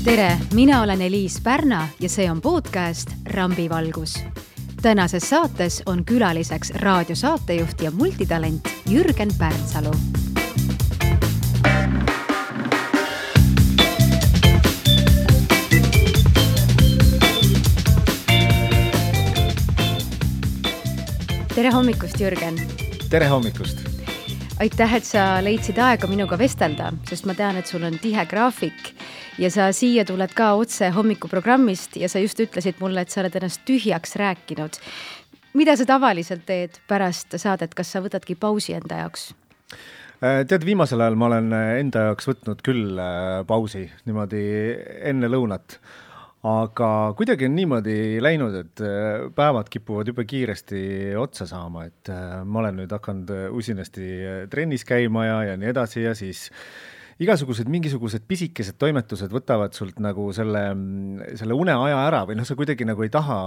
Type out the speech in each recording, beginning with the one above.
Tere, mina olen Eliis Pärna ja see on podcast Rambivalgus. Tänases saates on külaliseks raadiosaatejuht ja multitalent Jürgen Pärnsalu. Tere hommikust, Jürgen! Tere hommikust! Aitäh, et sa leidsid aega minuga vestelda, sest ma tean, et sul on tihe graafik ja sa siia tuled ka otse hommikuprogrammist ja sa just ütlesid mulle, et sa oled ennast tühjaks rääkinud. Mida sa tavaliselt teed pärast saadet, kas sa võtadki pausi enda jaoks? Tead, viimasel ajal ma olen enda jaoks võtnud küll pausi niimoodi enne lõunat. Aga kuidagi on niimoodi läinud, et päevad kipuvad juba kiiresti otsa saama, et ma olen nüüd hakanud usinasti trennis käima ja nii edasi ja siis mingisugused pisikesed toimetused võtavad sult nagu selle uneaja ära või sa kuidagi nagu ei taha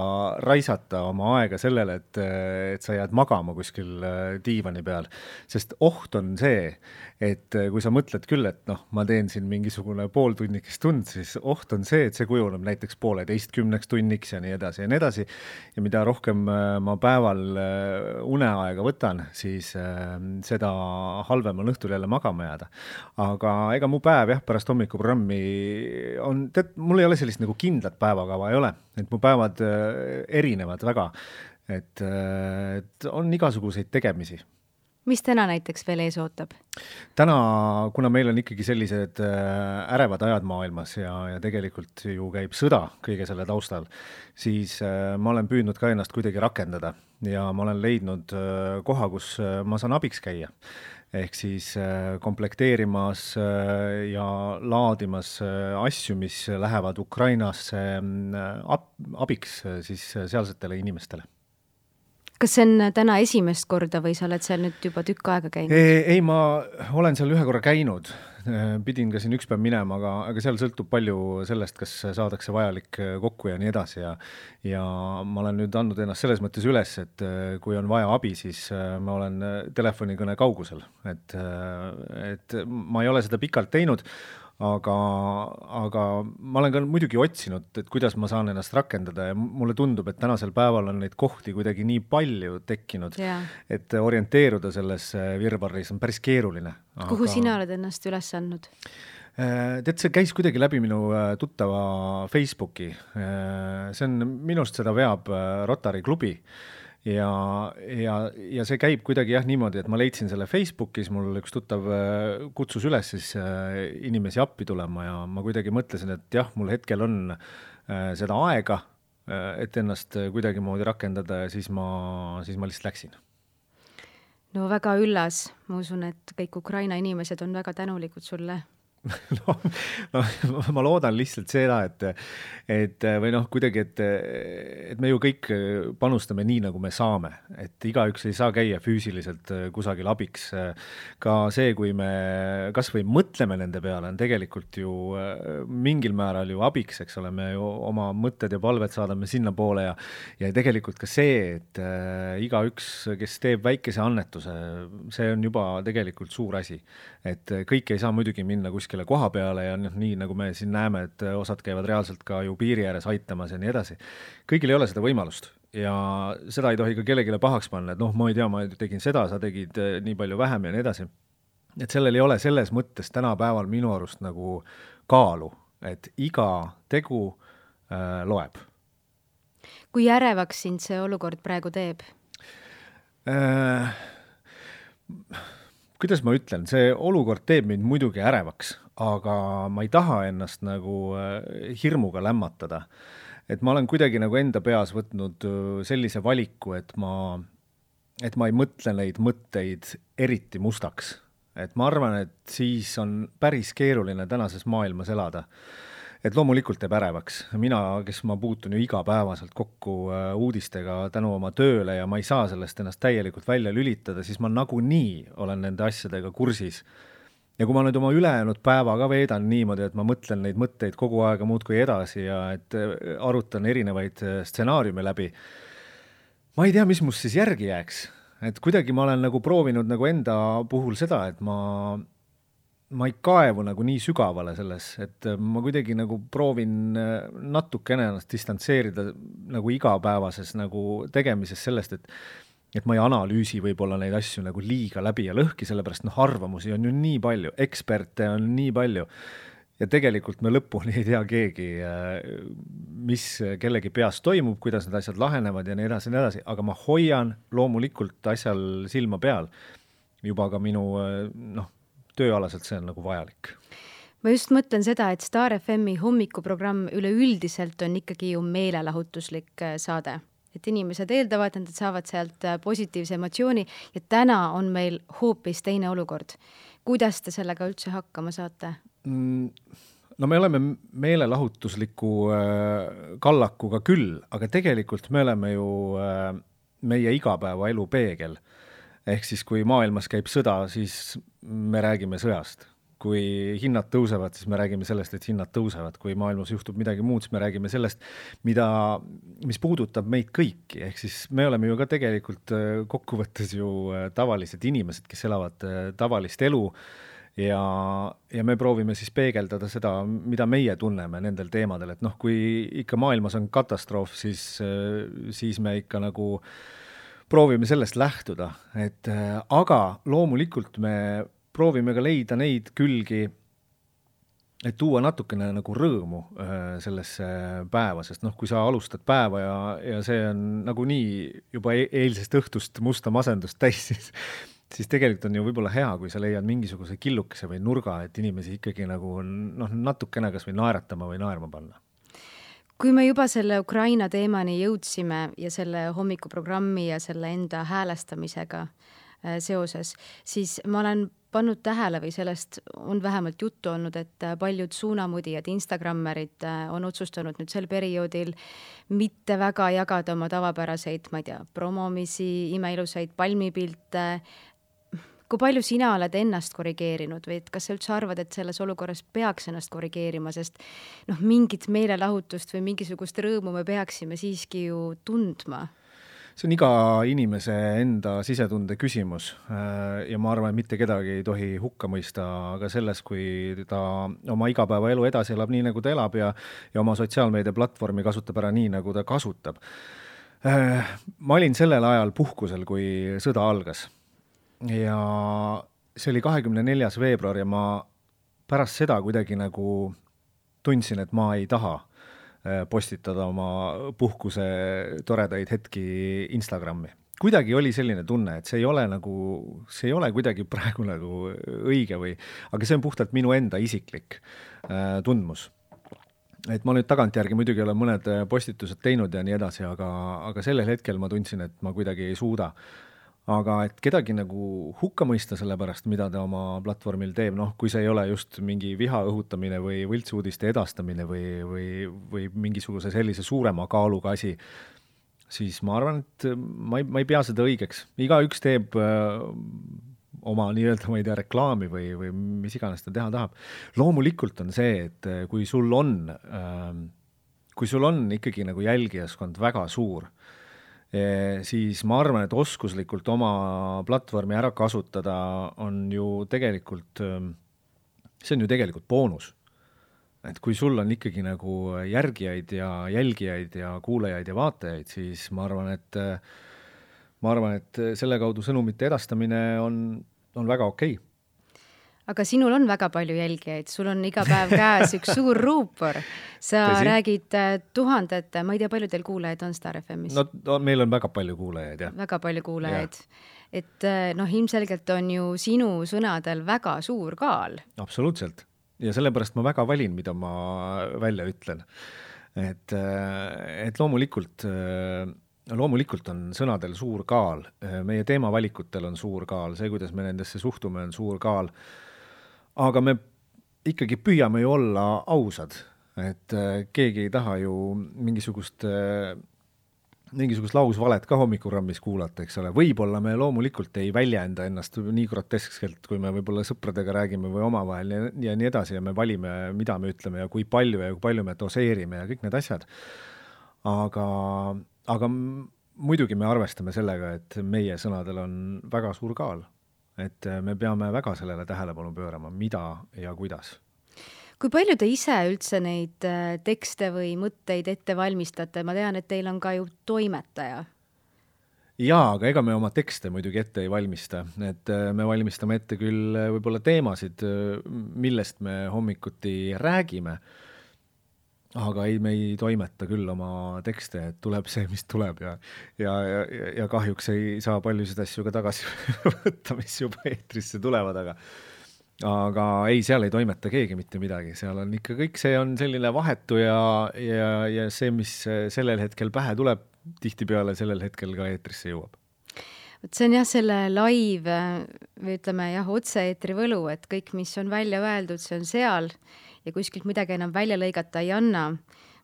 raisata oma aega sellele, et sa jääd magama kuskil diivani peal, sest oht on see, et kui sa mõtled küll, et ma teen siin mingisugune pooltunnikest tund, siis oht on see, et see kujuneb näiteks 11:30 tunniks ja nii edasi ja nii edasi. Ja mida rohkem ma päeval uneaega võtan, siis seda halvem on õhtul jälle magama jääda. Aga ega mu päev pärast hommikuprogrammi on, mul ei ole sellist nagu kindlat päevakava ei ole, et mu päevad erinevad väga, et on igasuguseid tegemisi. Mis täna näiteks veel ees ootab? Täna, kuna meil on ikkagi sellised ärevad ajad maailmas ja tegelikult ju käib sõda kõige selle taustal, siis ma olen püüdnud ka ennast kuidagi rakendada ja ma olen leidnud koha, kus ma saan abiks käia. Ehk siis komplekteerimas ja laadimas asju, mis lähevad Ukrainasse abiks siis sealsetele inimestele. Kas see on täna esimest korda või sa oled seal nüüd juba tükk aega käinud? Ei, ma olen seal ühe korra käinud. Pidin ka siin üks päev minema, aga seal sõltub palju sellest, kas saadakse vajalik kokku ja nii edasi. Ja ma olen nüüd andnud ennast selles mõttes üles, et kui on vaja abi, siis ma olen telefonikõne kaugusel. Et ma ei ole seda pikalt teinud, aga ma olen ka muidugi otsinud, et kuidas ma saan ennast rakendada ja mulle tundub, et tänasel päeval on neid kohti kuidagi nii palju tekkinud, et orienteeruda selles virvarris on päris keeruline. Kuhu sina oled ennast üles andnud? Tead, see käis kuidagi läbi minu tuttava Facebooki. See on minust seda veab Rotary klubi. Ja see käib kuidagi niimoodi, et ma leidsin selle Facebookis, mul üks tuttav kutsus üles siis inimesi appi tulema ja ma kuidagi mõtlesin, et mul hetkel on seda aega, et ennast kuidagi moodi rakendada ja siis ma lihtsalt läksin. No väga üllas, ma usun, et kõik Ukraina inimesed on väga tänulikud sulle. Ma loodan lihtsalt seda, et kuidagi, et me ju kõik panustame nii, nagu me saame, et igaüks ei saa käia füüsiliselt kusagil abiks. Ka see, kui me kas või mõtleme nende peale, on tegelikult ju mingil määral ju abiks, eks ole, me ju oma mõtted ja palved saadame sinna poole ja tegelikult ka see, et igaüks, kes teeb väikese annetuse, see on juba tegelikult suur asi, et kõik ei saa muidugi minna kuskile koha peale ja nii nagu me siin näeme, et osad käivad reaalselt ka ju piiri ääres aitamas ja nii edasi. Kõigil ei ole seda võimalust ja seda ei tohi ka kellegile pahaks panna, et ma ei tea, ma tegin seda, sa tegid nii palju vähem ja nii edasi. Et sellel ei ole selles mõttes tänapäeval minu arust nagu kaalu, et iga tegu loeb. Kui ärevaks sind see olukord praegu teeb? Kuidas ma ütlen, see olukord teeb mind muidugi ärevaks, aga ma ei taha ennast nagu hirmuga lämmatada. Et ma olen kuidagi nagu enda peas võtnud sellise valiku, et ma ei mõtle neid mõtteid eriti mustaks. Et ma arvan, et siis on päris keeruline tänases maailmas elada. Et loomulikult teeb ärevaks. Mina, kes ma puutun ju igapäevaselt kokku uudistega tänu oma tööle ja ma ei saa sellest ennast täielikult välja lülitada, siis ma nagunii olen nende asjadega kursis. Ja kui ma nüüd oma ülejäänud päeva ka veedan niimoodi, et ma mõtlen neid mõtteid kogu aega muudkui edasi ja et arutan erinevaid stsenaariume läbi, ma ei tea, mis must siis järgi jääks. Et kuidagi ma olen nagu proovinud nagu enda puhul seda, et ma ma ei kaevu nagu nii sügavale selles, et ma kuidagi nagu proovin natukene ennast distantseerida nagu igapäevases nagu tegemises sellest, et ma ei analüüsi võib-olla neid asju nagu liiga läbi ja lõhki, sellepärast arvamusi on ju nii palju, eksperte on nii palju ja tegelikult me lõpuni ei tea keegi, mis kellegi peas toimub, kuidas need asjad lahenevad ja nii edasi, aga ma hoian loomulikult asjal silma peal. Juba ka minu tööalaselt see on nagu vajalik. Ma just mõtlen seda, et Star FM-i hommikuprogramm üleüldiselt on ikkagi ju meelelahutuslik saade. Et inimesed eeldavad, et nad saavad sealt positiivse emotsiooni ja täna on meil hoopis teine olukord. Kuidas te sellega üldse hakkama saate? No me oleme meelelahutusliku kallakuga küll, aga tegelikult me oleme ju meie igapäeva elu peegel. Ehk siis, kui maailmas käib sõda, siis me räägime sõjast. Kui hinnad tõusevad, siis me räägime sellest, et hinnad tõusevad. Kui maailmas juhtub midagi muud, siis me räägime sellest, mis puudutab meid kõiki. Ehk siis me oleme ju ka tegelikult kokkuvõttes ju tavalised inimesed, kes elavad tavalist elu ja me proovime siis peegeldada seda, mida meie tunneme nendel teemadel. Et kui ikka maailmas on katastroof, siis me ikka nagu proovime sellest lähtuda. Aga loomulikult me proovime ka leida neid külgi, et tuua natukene nagu rõõmu sellesse päeva, sest kui sa alustad päeva ja see on nagu nii juba eilsest õhtust musta masendust täis, siis tegelikult on ju võib-olla hea, kui sa leiad mingisuguse killukese või nurga, et inimesi ikkagi nagu natukene kas või naeratama või naerma panna. Kui me juba selle Ukraina teemani jõudsime ja selle hommikuprogrammi ja selle enda häälestamisega seoses, siis ma olen pannud tähele või sellest on vähemalt juttu olnud, et paljud suunamudijad, Instagrammerid on otsustanud nüüd sel perioodil mitte väga jagada oma tavapäraseid, ma ei tea, promomisi, imeilusaid palmipilte. Kui palju sina oled ennast korrigeerinud või kas sa üldse arvad, et selles olukorras peaks ennast korrigeerima, sest mingit meelelahutust või mingisugust rõõmu me peaksime siiski ju tundma? See on iga inimese enda sisetunde küsimus ja ma arvan, et mitte kedagi ei tohi hukka mõista aga selles, kui ta oma igapäeva elu edasi elab nii, nagu ta elab ja oma sotsiaalmeedia platvormi kasutab ära nii, nagu ta kasutab. Ma olin sellel ajal puhkusel, kui sõda algas ja see oli 24. veebruar ja ma pärast seda kuidagi nagu tundsin, et ma ei taha postitada oma puhkuse toredaid hetki Instagrami. Kuidagi oli selline tunne, et see ei ole kuidagi praegu nagu õige aga see on puhtalt minu enda isiklik tundmus. Et ma nüüd tagantjärgi muidugi olen mõned postitused teinud ja nii edasi, aga sellel hetkel ma tundsin, et ma kuidagi ei suuda. Aga et kedagi nagu hukka mõista selle pärast, mida ta oma platvormil teeb, kui see ei ole just mingi viha õhutamine või võltsuudiste edastamine või mingisuguse sellise suurema kaaluga asi, siis ma arvan, et ma ei pea seda õigeks. Igaüks teeb oma nii-öelda, ma ei tea, reklaami või mis iganes ta teha tahab. Loomulikult on see, et kui sul on ikkagi nagu jälgijaskond väga suur, siis ma arvan, et oskuslikult oma platvormi ära kasutada on ju tegelikult, see on ju tegelikult boonus. Et kui sul on ikkagi nagu järgijaid ja jälgijaid ja kuulajaid ja vaatajaid, siis ma arvan, et selle kaudu sõnumite edastamine on väga okei. Aga sinul on väga palju jälgijaid, sul on iga päev käes üks suur ruupor. Sa räägid tuhandete, ma ei tea, palju teil kuulajaid on Star FM-is? No meil on väga palju kuulajaid, jah. Väga palju kuulajaid. Ja. Et ilmselgelt on ju sinu sõnadel väga suur kaal. Absoluutselt. Ja sellepärast ma väga valin, mida ma välja ütlen. Et loomulikult on sõnadel suur kaal. Meie teemavalikutel on suur kaal. See, kuidas me nendesse suhtume, on suur kaal. Aga me ikkagi püüame ju olla ausad, et keegi ei taha ju mingisugust lausvalet ka hommikurammis kuulata, eks ole. Võib-olla me loomulikult ei väljenda ennast nii groteskselt, kui me võib-olla sõpradega räägime või omavahel ja nii edasi ja me valime, mida me ütleme ja kui palju me doseerime ja kõik need asjad. Aga muidugi me arvestame sellega, et meie sõnadel on väga suur kaal. et me peame väga sellele tähelepanu pöörama, mida ja kuidas. Kui palju te ise üldse neid tekste või mõtteid ette valmistate? Ma tean, et teil on ka ju toimetaja. Jaa, aga ega me oma tekste muidugi ette ei valmista, et me valmistame ette küll võib-olla teemasid, millest me hommikuti räägime, aga me ei toimeta küll oma tekste, et tuleb see, mis tuleb ja kahjuks ei saa paljusid asju ka tagasi võtta, mis juba eetrisse tulevad, aga ei, seal ei toimeta keegi mitte midagi, seal on ikka kõik, see on selline vahetu ja see, mis sellel hetkel pähe tuleb, tihtipeale sellel hetkel ka eetrisse jõuab. See on jah, selle live või ütleme jah, otse-eetri võlu, et kõik, mis on välja öeldud, see on seal ja kuskilt midagi enam välja lõigata ei anna.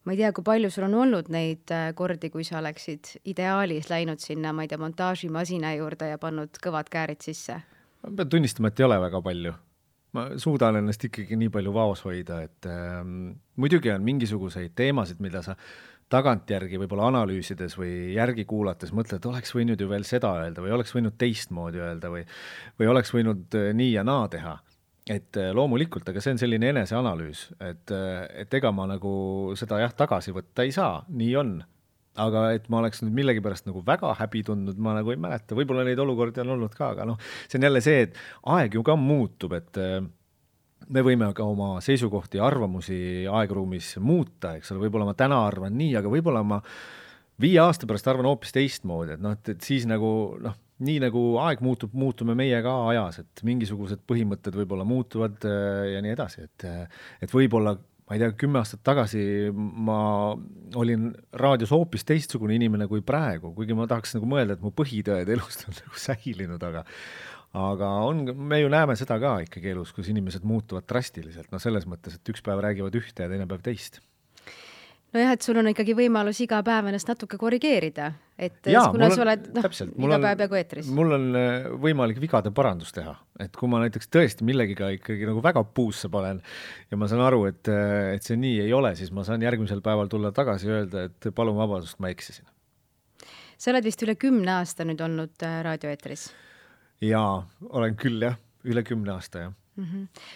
Ma ei tea, kui palju sul on olnud neid kordi, kui sa oleksid ideaalis läinud sinna, ma ei tea, montaažimasina juurde ja pannud kõvad käärid sisse? Ma pean tunnistama, et ei ole väga palju. Ma suudan ennast ikkagi nii palju vaos hoida, et muidugi on mingisuguseid teemasid, mida sa tagantjärgi võib-olla analüüsides või järgi kuulates mõtled, et oleks võinud ju veel seda öelda või oleks võinud teistmoodi öelda või oleks võinud nii ja naa teha. Et loomulikult, aga see on selline eneseanalüüs, et ega ma nagu seda tagasi võtta ei saa, nii on. Aga et ma oleks nüüd millegipärast nagu väga häbi tundnud, ma nagu ei mäleta, võib-olla neid olukordi on olnud ka, aga see on jälle see, et aeg ju ka muutub, et me võime ka oma seisukohti ja arvamusi aegruumis muuta, eks ole, võib-olla ma täna arvan nii, aga võib-olla ma 5 aasta pärast arvan hoopis teistmoodi, et siis nagu, nii nagu aeg muutub, muutume meie ka ajas, et mingisugused põhimõtted võib-olla muutuvad ja nii edasi, et võib-olla ma ei tea, 10 aastat tagasi ma olin raadios hoopis teistsugune inimene kui praegu, kuigi ma tahaks nagu mõelda, et mu põhitõed elust on nagu säilinud, aga me ju näeme seda ka ikkagi elus, kus inimesed muutuvad drastiliselt, selles mõttes, et üks päev räägivad ühte ja teine päev teist. Nojah, et sul on ikkagi võimalus iga päev ennast natuke korrigeerida, et kuna sa oled iga päev peaaegu eetris. Mul on võimalik vigade parandus teha, et kui ma näiteks tõesti millegiga ikkagi nagu väga puusse panen ja ma saan aru, et see nii ei ole, siis ma saan järgmisel päeval tulla tagasi ja öelda, et palun vabadust, ma eksisin. Sa oled vist üle 10 aasta nüüd olnud raadioeetris? Jaa, olen küll jah, üle 10 aasta jah.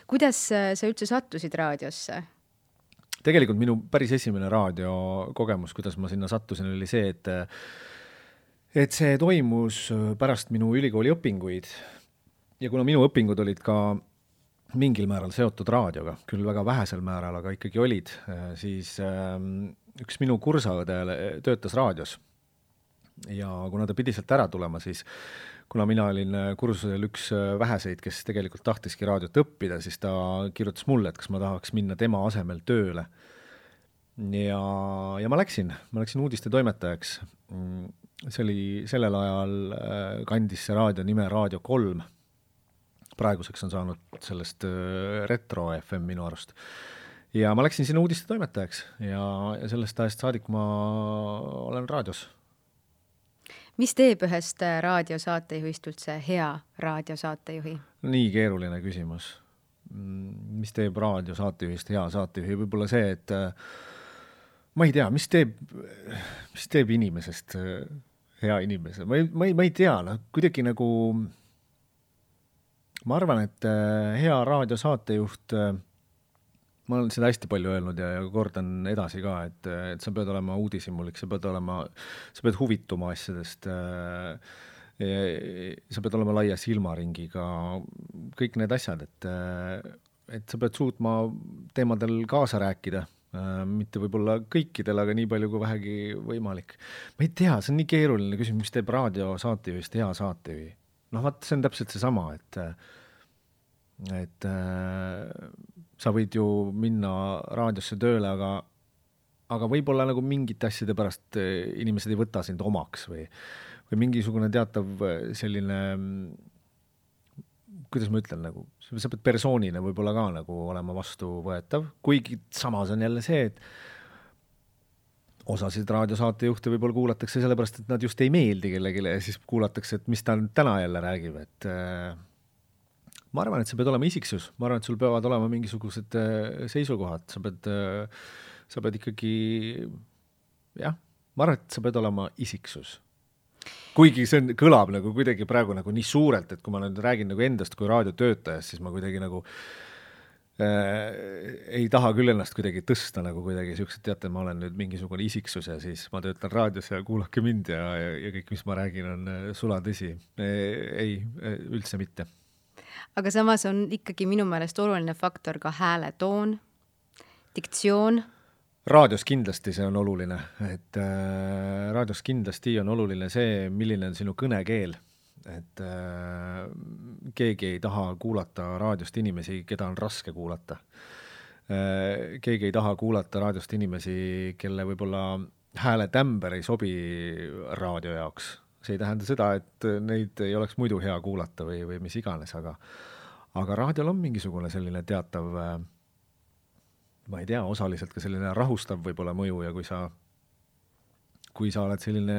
Kuidas sa üldse sattusid raadiosse? Tegelikult minu päris esimene raadiokogemus, kuidas ma sinna sattusin, oli see, et see toimus pärast minu ülikooli õpinguid ja kuna minu õpingud olid ka mingil määral seotud raadioga, küll väga vähesel määral, aga ikkagi olid, siis üks minu kursaõde töötas raadios ja kuna ta pidi sealt ära tulema, siis kuna mina olin kursusel üks väheseid, kes tegelikult tahtiski raadiot õppida, siis ta kirjutas mulle, et kas ma tahaks minna tema asemel tööle. Ja ma läksin uudiste toimetajaks. See oli sellel ajal kandis see raadio nime Raadio 3. Praeguseks on saanud sellest Retro FM minu arust. Ja ma läksin sinna uudiste toimetajaks ja sellest ajast saadik ma olen raadios. Mis teeb ühest raadiosaatejuhist üldse hea raadiosaatejuhi? Nii keeruline küsimus. Mis teeb raadiosaatejuhist hea saatejuhi? Võib-olla see, et ma ei tea, mis teeb inimesest hea inimese? Ma ei tea, kuidagi nagu ma arvan, et hea raadiosaatejuht, ma olen seda hästi palju öelnud ja kordan edasi ka, et sa pead olema uudishimulik, sa pead huvituma asjadest, sa pead olema laia silmaringiga, kõik need asjad, et sa pead suutma teemadel kaasa rääkida, mitte võib-olla kõikidel, aga nii palju kui vähegi võimalik. Ma ei tea, see on nii keeruline küsimus, mis teeb raadiosaatejuhist hea saatejuhi. Vaat see on täpselt see sama, et sa võid ju minna raadiosse tööle, aga võib-olla nagu mingite asjade pärast inimesed ei võta sind omaks või mingisugune teatav selline, kuidas ma ütlen, nagu, sa pead persoonina võib-olla ka nagu olema vastuvõetav, kuigi samas on jälle see, et osasid raadiosaatejuhte võib-olla kuulatakse sellepärast, et nad just ei meeldi kellegile ja siis kuulatakse, et mis ta täna jälle räägib, et ma arvan, et sa pead olema isiksus, ma arvan, et sul peavad olema mingisugused seisukohad, sa pead ikkagi, jah, ma arvan, et sa pead olema isiksus. kuigi see kõlab nagu kuidagi praegu nagu nii suurelt, et kui ma nüüd räägin nagu endast kui raadiotöötajast, siis ma kuidagi nagu ei taha küll ennast kuidagi tõsta nagu kuidagi siuksed, teate, ma olen nüüd mingisugune isiksus ja siis ma töötan raadios ja kuulake mind ja kõik, mis ma räägin, on sulatõsi. Ei, üldse mitte. Aga samas on ikkagi minu meelest oluline faktor ka hääletoon, diktsioon. Raadios kindlasti see on oluline, et raadios kindlasti on oluline see, milline on sinu kõnekeel. Et keegi ei taha kuulata raadiost inimesi, keda on raske kuulata. Keegi ei taha kuulata raadiost inimesi, kelle võib-olla hääletämber ei sobi raadio jaoks. See ei tähenda seda, et neid ei oleks muidu hea kuulata või mis iganes, aga raadiol on mingisugune selline teatav, ma ei tea, osaliselt ka selline rahustav võib-olla mõju ja kui sa oled selline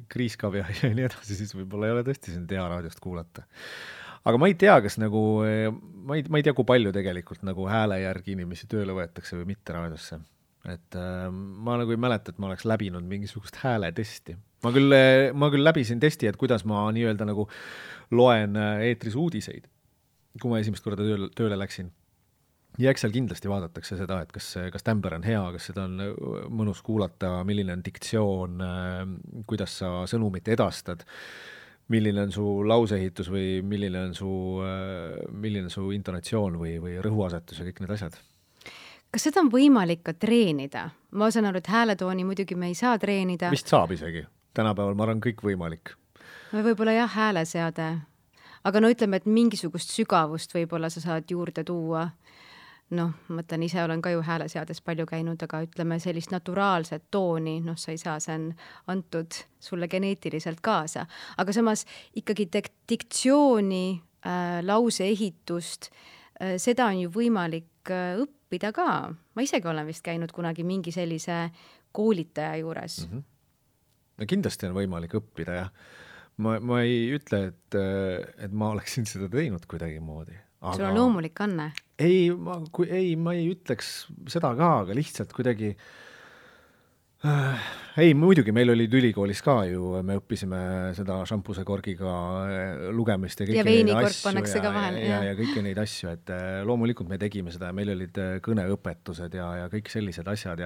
kriiskav ja nii edasi, siis võib-olla ei ole tõesti sind hea raadiost kuulata. Aga ma ei tea, kas nagu, ma ei tea, kui palju tegelikult nagu hääle järgi inimesi tööle võetakse või mitte raadiosse. Et ma nagu ei mäleta, et ma oleks läbinud mingisugust hääletesti. Ma küll läbisin testi, et kuidas ma nii-öelda nagu loen eetris uudiseid, kui ma esimest korda tööle läksin. Ja eks seal kindlasti vaadatakse seda, et kas tämber on hea, kas seda on mõnus kuulata, milline on diktsioon, kuidas sa sõnumit edastad, milline on su lauseehitus või milline on su intonatsioon või rõhuasetus ja kõik need asjad. Kas seda on võimalik ka treenida? Ma saan aru, et hääletooni muidugi me ei saa treenida. Vist saab isegi. Tänapäeval ma arvan kõik võimalik. Võib-olla jah, hääleseade. Aga no ütleme, et mingisugust sügavust võib-olla sa saad juurde tuua. Noh, mõtlen, ise olen ka ju hääleseades palju käinud, aga ütleme sellist naturaalset tooni, sa ei saa, see on antud sulle geneetiliselt kaasa. Aga samas ikkagi diktsiooni, lauseehitust, seda on ju võimalik õppida ka. Ma isegi olen vist käinud kunagi mingi sellise koolitaja juures. No kindlasti on võimalik õppida, jah. Ma ei ütle, et ma oleksin seda teinud kuidagi moodi. Aga... Sul on loomulik anne? Ei, ma ei ütleks seda ka, aga lihtsalt kuidagi... Ei, muidugi, meil oli ülikoolis ka ju, me õppisime seda šampuse korgiga lugemist ja kõiki neid asju ja kõiki neid asju, et loomulikult me tegime seda ja meil olid kõneõpetused ja kõik sellised asjad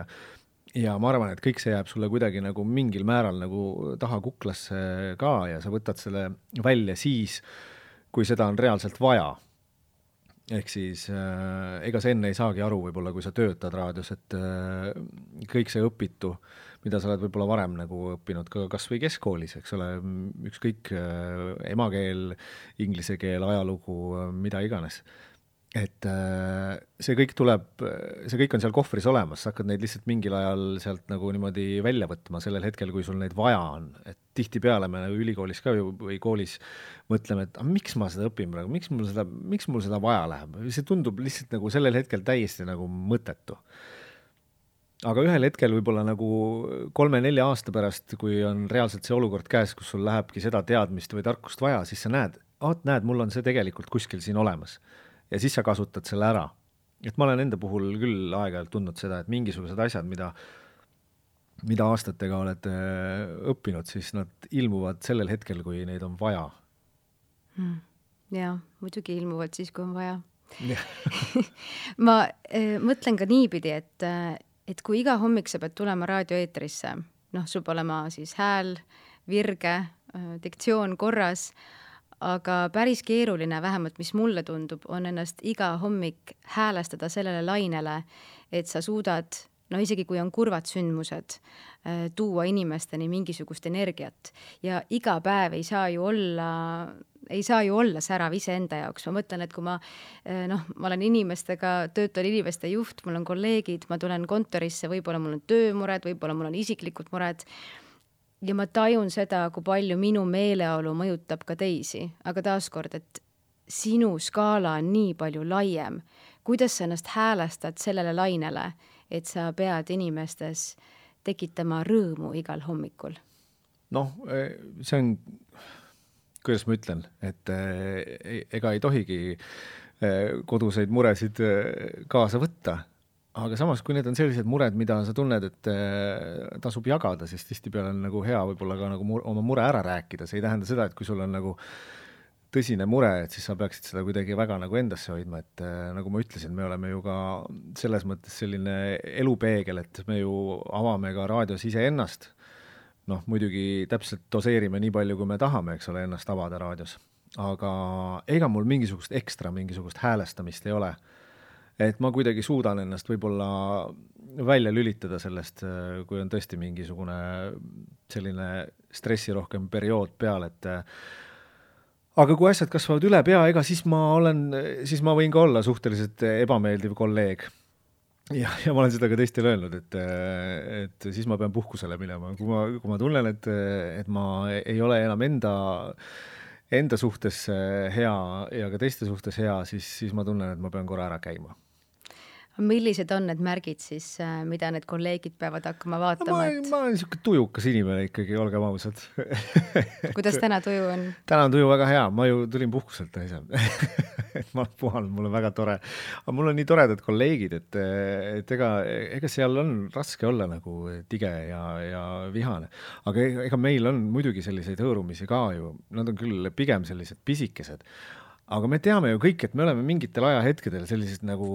ja ma arvan, et kõik see jääb sulle kuidagi nagu mingil määral nagu taha kuklasse ka ja sa võtad selle välja siis, kui seda on reaalselt vaja. Ehk siis ega sa enne ei saagi aru võib-olla, kui sa töötad raadios, et kõik see õpitu, mida sa oled võib-olla varem nagu õppinud ka kas või keskkoolis, eks ole, ükskõik emakeel, inglise keel, ajalugu, mida iganes. Et see kõik on seal kohvris olemas, sa hakkad neid lihtsalt mingil ajal sealt nagu niimoodi välja võtma sellel hetkel, kui sul neid vaja on. Et tihtipeale me ülikoolis ka või koolis mõtleme, et miks ma seda õpin praegu, miks mul seda vaja läheb. See tundub lihtsalt nagu sellel hetkel täiesti nagu mõttetu. Aga ühel hetkel võib-olla nagu 3-4 aasta pärast, kui on reaalselt see olukord käes, kus sul lähebki seda teadmist või tarkust vaja, siis sa näed, mul on see tegelikult kuskil siin olemas. Ja siis sa kasutad selle ära. Et ma olen enda puhul küll aeg-ajalt tundnud seda, et mingisugused asjad, mida aastatega oled õppinud, siis nad ilmuvad sellel hetkel, kui neid on vaja. Jaa, muidugi ilmuvad siis, kui on vaja. Ma mõtlen ka niipidi, et kui iga hommik sa pead tulema raadioeetrisse, sul peab olema siis hääl, virge, diktsioon korras, aga päris keeruline, vähemalt mis mulle tundub, on ennast iga hommik häälestada sellele lainele, et sa suudad, isegi kui on kurvad sündmused, tuua inimesteni mingisugust energiat. Ja iga päev ei saa ju olla särav iseenda jaoks. Ma mõtlen, et kui ma olen töötan inimeste juht, mul on kolleegid, ma tulen kontorisse, võib-olla mul on töömured, võib-olla mul on isiklikud mured, ja ma tajun seda, kui palju minu meeleolu mõjutab ka teisi. Aga taaskord, et sinu skaala on nii palju laiem. Kuidas sa ennast häälestad sellele lainele, et sa pead inimestes tekitama rõõmu igal hommikul? See on, kuidas ma ütlen, et ega ei tohigi koduseid muresid kaasa võtta. aga samas, kui need on sellised mured, mida sa tunned, et tasub jagada, siis tihtipeale on nagu hea võib-olla ka nagu oma mure ära rääkida, see ei tähenda seda, et kui sul on nagu tõsine mure, et siis sa peaksid seda kuidagi väga nagu endasse hoidma, et nagu ma ütlesin, me oleme ju ka selles mõttes selline elupeegel, et me ju avame ka raadios iseennast, noh, muidugi täpselt doseerime nii palju, kui me tahame, eks ole, ennast avada raadios, aga ega mul mingisugust häälestamist ei ole, et ma kuidagi suudan ennast võib-olla välja lülitada sellest, kui on tõesti mingisugune selline stressirohkem periood peal, et aga kui asjad kasvavad üle pea, ega siis ma võin ka olla suhteliselt ebameeldiv kolleeg. Ja ma olen seda ka teistele öelnud, et siis ma pean puhkusele minema. Kui ma tunnen, et ma ei ole enam enda suhtes hea ja ka teiste suhtes hea, siis ma tunnen, et ma pean korra ära käima. Millised on need märgid siis, mida need kolleegid peavad hakkama vaatama? Ma olen niisugune tujukas inimene ikkagi, olgem ausad. Kuidas täna tuju on? Täna on tuju väga hea, ma ju tulin puhkuselt ise. Ma olen puhanud, mul on väga tore. Aga mul on nii toredad kolleegid, et ega seal on raske olla nagu tige ja vihane. Aga ega meil on muidugi selliseid hõõrumisi ka ju, nad on küll pigem sellised pisikesed. Aga me teame ju kõik, et me oleme mingitel ajahetkedel sellised nagu,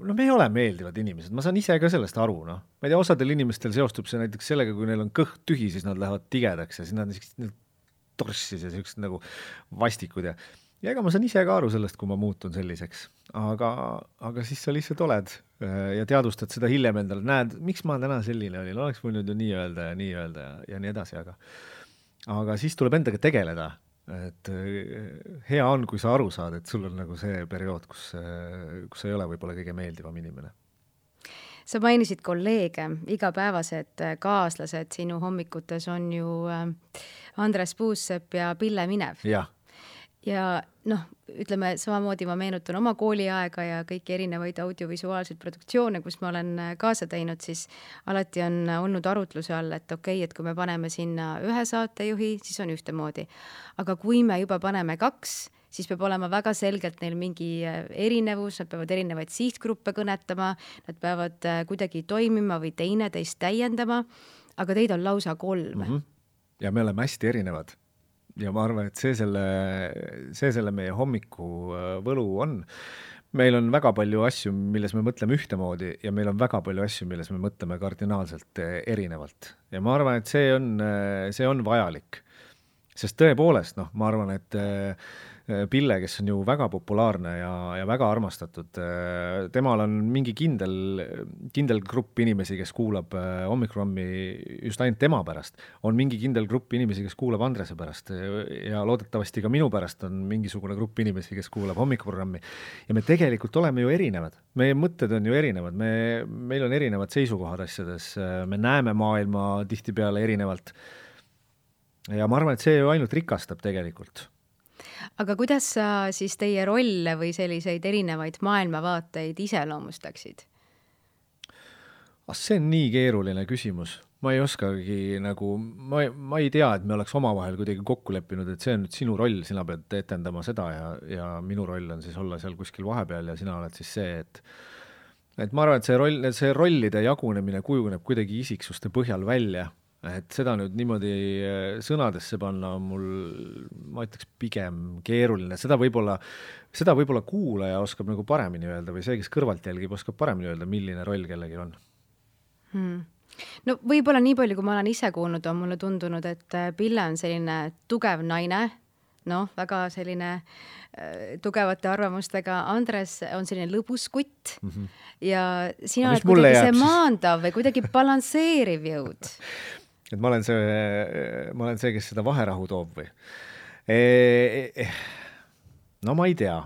no me ei ole meeldivad inimesed, ma saan ise ka sellest aru, noh. Ma ei tea, osadel inimestel seostub see näiteks sellega, kui neil on kõht tühi, siis nad lähevad tigedaks ja siis nad on torssis ja sellised nagu vastikud ja ega ma saan ise ka aru sellest, kui ma muutun selliseks. Aga siis sa lihtsalt oled ja teadvustad seda hiljem endale, näed, miks ma täna selline olin, oleks võinud ju nii öelda ja nii edasi, aga siis tuleb endaga tegeleda. Et hea on, kui sa aru saad, et sul on nagu see periood, kus sa ei ole võib-olla kõige meeldivam inimene. Sa mainisid kolleege, igapäevased kaaslased sinu hommikutes on ju Andres Puussepp ja Pille Minev. Ja noh, ütleme samamoodi ma meenutan oma kooliaega ja kõiki erinevaid audiovisuaalseid produktsioone, kus ma olen kaasa teinud, siis alati on olnud arutluse all, et okei, et kui me paneme sinna ühe saatejuhi, siis on ühtemoodi. Aga kui me juba paneme 2, siis peab olema väga selgelt neil mingi erinevus, nad peavad erinevaid sihtgruppe kõnetama, nad peavad kuidagi toimima või teineteist täiendama, aga teid on lausa 3. Ja me oleme hästi erinevad. Ja ma arvan, et see selle meie hommiku võlu on. Meil on väga palju asju, milles me mõtleme ühtemoodi ja meil on väga palju asju, milles me mõtleme kardinaalselt erinevalt. Ja ma arvan, et see on vajalik. Sest tõepoolest, ma arvan, et Pille, kes on ju väga populaarne ja väga armastatud, temal on mingi kindel grupp inimesi, kes kuulab hommikuprogrammi just ainult tema pärast. On mingi kindel grupp inimesi, kes kuulab Andrese pärast ja loodetavasti ka minu pärast on mingisugune grupp inimesi, kes kuulab hommikuprogrammi. Ja me tegelikult oleme ju erinevad. Meie mõtted on ju erinevad. Meil on erinevad seisukohad asjades. Me näeme maailma tihtipeale erinevalt. Ja ma arvan, et see ju ainult rikastab tegelikult. Aga kuidas sa siis teie rolle või selliseid erinevaid maailmavaateid iseloomustaksid? See on nii keeruline küsimus. Ma ei oskagi nagu, ma ei tea, et me oleks omavahel kuidagi kokku leppinud, et see on nüüd sinu roll, sina pead etendama seda ja minu roll on siis olla seal kuskil vahepeal ja sina oled siis see, et ma arvan, et see rollide jagunemine kujuneb kuidagi isiksuste põhjal välja. Et seda nüüd niimoodi sõnadesse panna mul, ma ütleks, pigem keeruline. Seda võib-olla kuulaja oskab nagu paremini öelda või see, kes kõrvalt jälgib, oskab paremini öelda, milline roll kellegi on. No võib-olla nii palju, kui ma olen ise kuulnud, on mulle tundunud, et Pille on selline tugev naine, väga selline tugevate arvamustega. Andres on selline lõbus kutt ja sina oled kuidagi see maandav või kuidagi balansseeriv jõud. Et ma olen see, kes seda vaherahu toob või? No ma ei tea.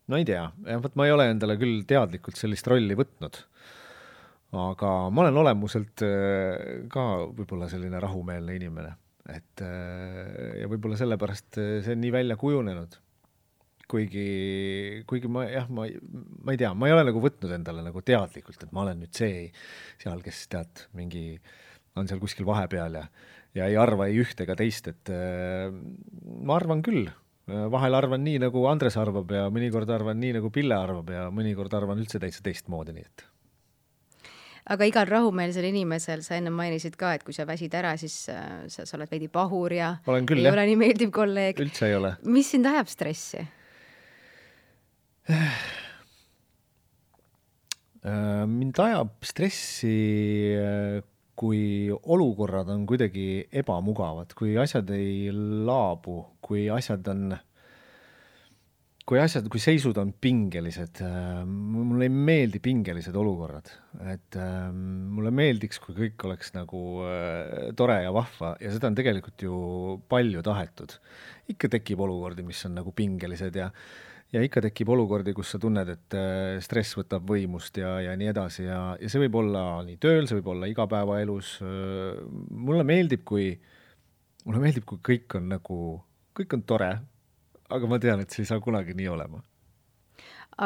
Ma ei ole endale küll teadlikult sellist rolli võtnud. Aga ma olen olemuselt ka võib-olla selline rahumeelne inimene. Ja võib-olla sellepärast see on nii välja kujunenud. Kuigi ma ei tea, ma ei ole nagu võtnud endale nagu teadlikult, et ma olen nüüd see seal, kes tead mingi on seal kuskil vahepeal ja ei arva ei ühte ega teist, et ma arvan küll. Vahel arvan nii, nagu Andres arvab ja mõnikord arvan nii, nagu Pille arvab ja mõnikord arvan üldse täitsa teistmoodi, nii et. Aga igal rahumeelsel inimesel, sa enne mainisid ka, et kui sa väsid ära, siis sa oled veidi pahur ja olen küll, ei ole nii meeldiv kolleeg. Üldse ei ole. Mis sind ajab stressi? Mind ajab stressi, kui olukorrad on kuidagi ebamugavad, kui asjad ei laabu, kui seisud on pingelised. Mulle ei meeldi pingelised olukorrad. Et mulle meeldiks, kui kõik oleks nagu tore ja vahva ja seda on tegelikult ju palju tahetud. Ikka tekib olukordi, mis on nagu pingelised ja ikka tekib olukordi, kus sa tunned, et stress võtab võimust ja nii edasi ja see võib olla nii tööl, see võib olla igapäevaelus. Mulle meeldib, kui kõik on tore, aga ma tean, et see ei saa kunagi nii olema.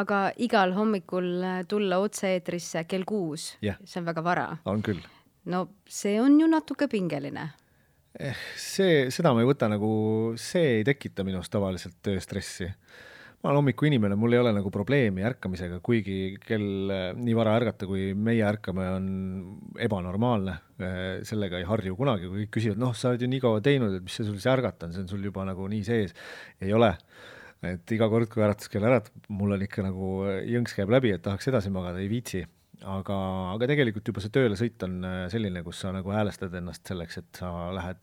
Aga igal hommikul tulla otse-eetrisse kell 6, see on väga vara. On küll. No see on ju natuke pingeline. Seda ma ei võta nagu, see ei tekita minust tavaliselt tööstressi. Ma olen hommiku inimene, mul ei ole nagu probleemi ärkamisega, kuigi kell nii vara ärgata, kui meie ärkame, on ebanormaalne. Sellega ei harju kunagi, kui kõik küsivad, sa oled ju nii kaua teinud, et mis see sul see ärgata on, see on sul juba nagu nii sees. Ei ole. Et iga kord, kui äratuskell mul on ikka nagu jõnks käib läbi, et tahaks edasi magada, ei viitsi. Aga tegelikult juba see tööle sõit on selline, kus sa nagu häälestad ennast selleks, et sa lähed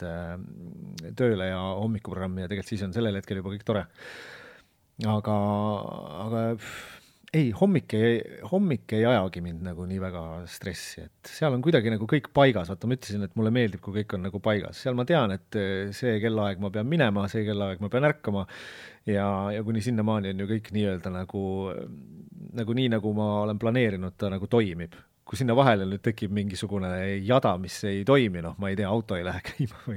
tööle ja hommikuprogrammi ja tegelikult siis on sellel hetkel juba kõik tore. Aga ei, hommik ei ajagi mind nagu nii väga stressi, et seal on kuidagi nagu kõik paigas. Vaata, ma ütlesin, et mulle meeldib, kui kõik on nagu paigas. Seal ma tean, et see kellaaeg ma pean minema, see kellaaeg ma pean ärkama ja kuni sinnamaani on ju kõik nii-öelda nagu nii, nagu ma olen planeerinud, ta nagu toimib. Kui sinna vahele nüüd tekib mingisugune jada, mis ei toimi, ma ei tea, auto ei lähe käima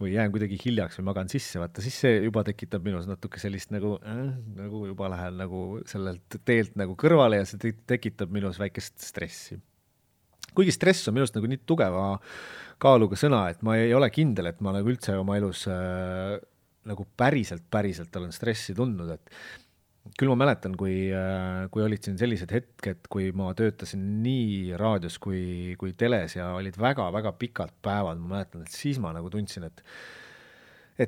või jään kuidagi hiljaks või magan sisse, vaata, siis see juba tekitab minus natuke sellist nagu juba lähen nagu sellelt teelt nagu kõrvale ja see tekitab minus väikest stressi. Kuigi stress on minust nagu nii tugeva kaaluga sõna, et ma ei ole kindel, et ma nagu üldse oma elus nagu päriselt olen stressi tundnud, et küll ma mäletan, kui olid siin sellised hetked, kui ma töötasin nii raadios kui teles ja olid väga-väga pikad päevad, ma mäletan, et siis ma nagu tundsin, et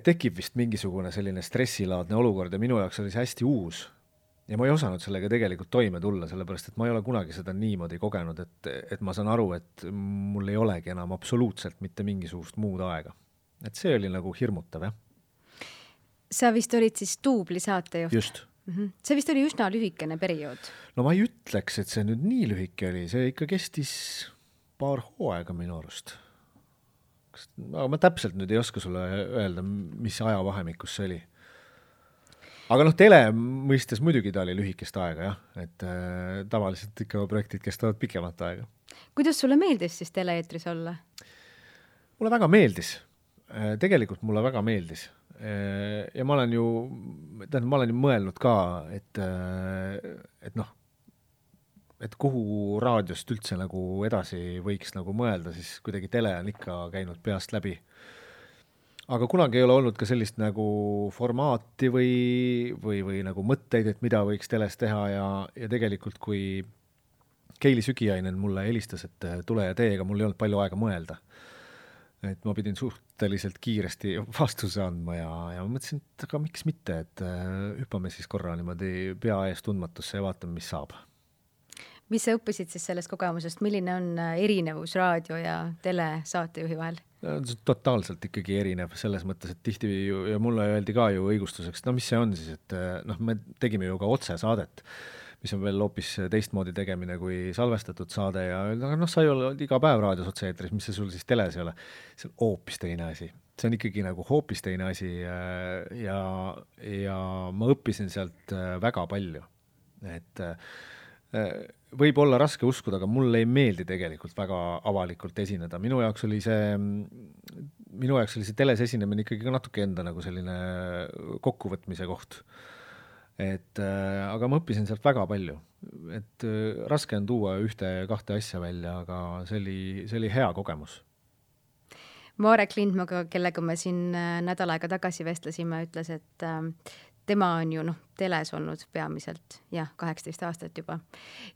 tekib vist mingisugune selline stressilaadne olukord ja minu jaoks oli see hästi uus ja ma ei osanud sellega tegelikult toime tulla, sellepärast et ma ei ole kunagi seda niimoodi kogenud, et ma saan aru, et mul ei olegi enam absoluutselt mitte mingisugust muud aega. Et see oli nagu hirmutav, jah. Sa vist olid siis duubli saatejuht? Just. See vist oli üsna lühikene periood. No ma ei ütleks, et see nüüd nii lühike oli, see ikka kestis paar hooaega minu arust. Aga ma täpselt nüüd ei oska sulle öelda, mis ajavahemikus see oli. Aga tele mõistes muidugi ta oli lühikest aega, jah, et tavaliselt ikka projektid kestavad pikemat aega. Kuidas sulle meeldis siis teleeetris olla? Mulle väga meeldis. Tegelikult mulle väga meeldis. Ja ma olen ju mõelnud ka, et kuhu raadiost üldse nagu edasi võiks nagu mõelda, siis kuidagi tele on ikka käinud peast läbi. Aga kunagi ei ole olnud ka sellist nagu formaati või nagu mõtteid, et mida võiks teles teha ja tegelikult kui Keili Sügiainen mulle helistas, et tule ja tee, ega mul ei olnud palju aega mõelda. Et ma pidin suhteliselt kiiresti vastuse andma ja ma mõtlesin, et aga miks mitte, et hüppame siis korra niimoodi pea ees tundmatusse ja vaatame, mis saab. Mis sa õppisid siis sellest kogemusest? Milline on erinevus raadio ja telesaatejuhi vahel? Totaalselt ikkagi erinev selles mõttes, et tihti ja mulle öeldi ka ju õigustuseks, mis see on siis, et me tegime ju ka otsesaadet, mis on veel hoopis teistmoodi tegemine kui salvestatud saade ja sa ei ole iga päev raadios otse-eetris, mis see sul siis teles ei ole. See on hoopis teine asi. See on ikkagi nagu hoopis teine asi ja ma õppisin sealt väga palju. Et võib olla raske uskuda, aga mulle ei meeldi tegelikult väga avalikult esineda. Minu jaoks oli see teles esinemine ikkagi natuke enda nagu selline kokkuvõtmise koht. Aga ma õppisin sealt väga palju. Et raske on tuua 1-2 asja välja, aga see oli hea kogemus. Marek Lindmaga, kellega me siin nädal aega tagasi vestlesime, ütles, et tema on ju teles olnud peamiselt, 18 aastat juba.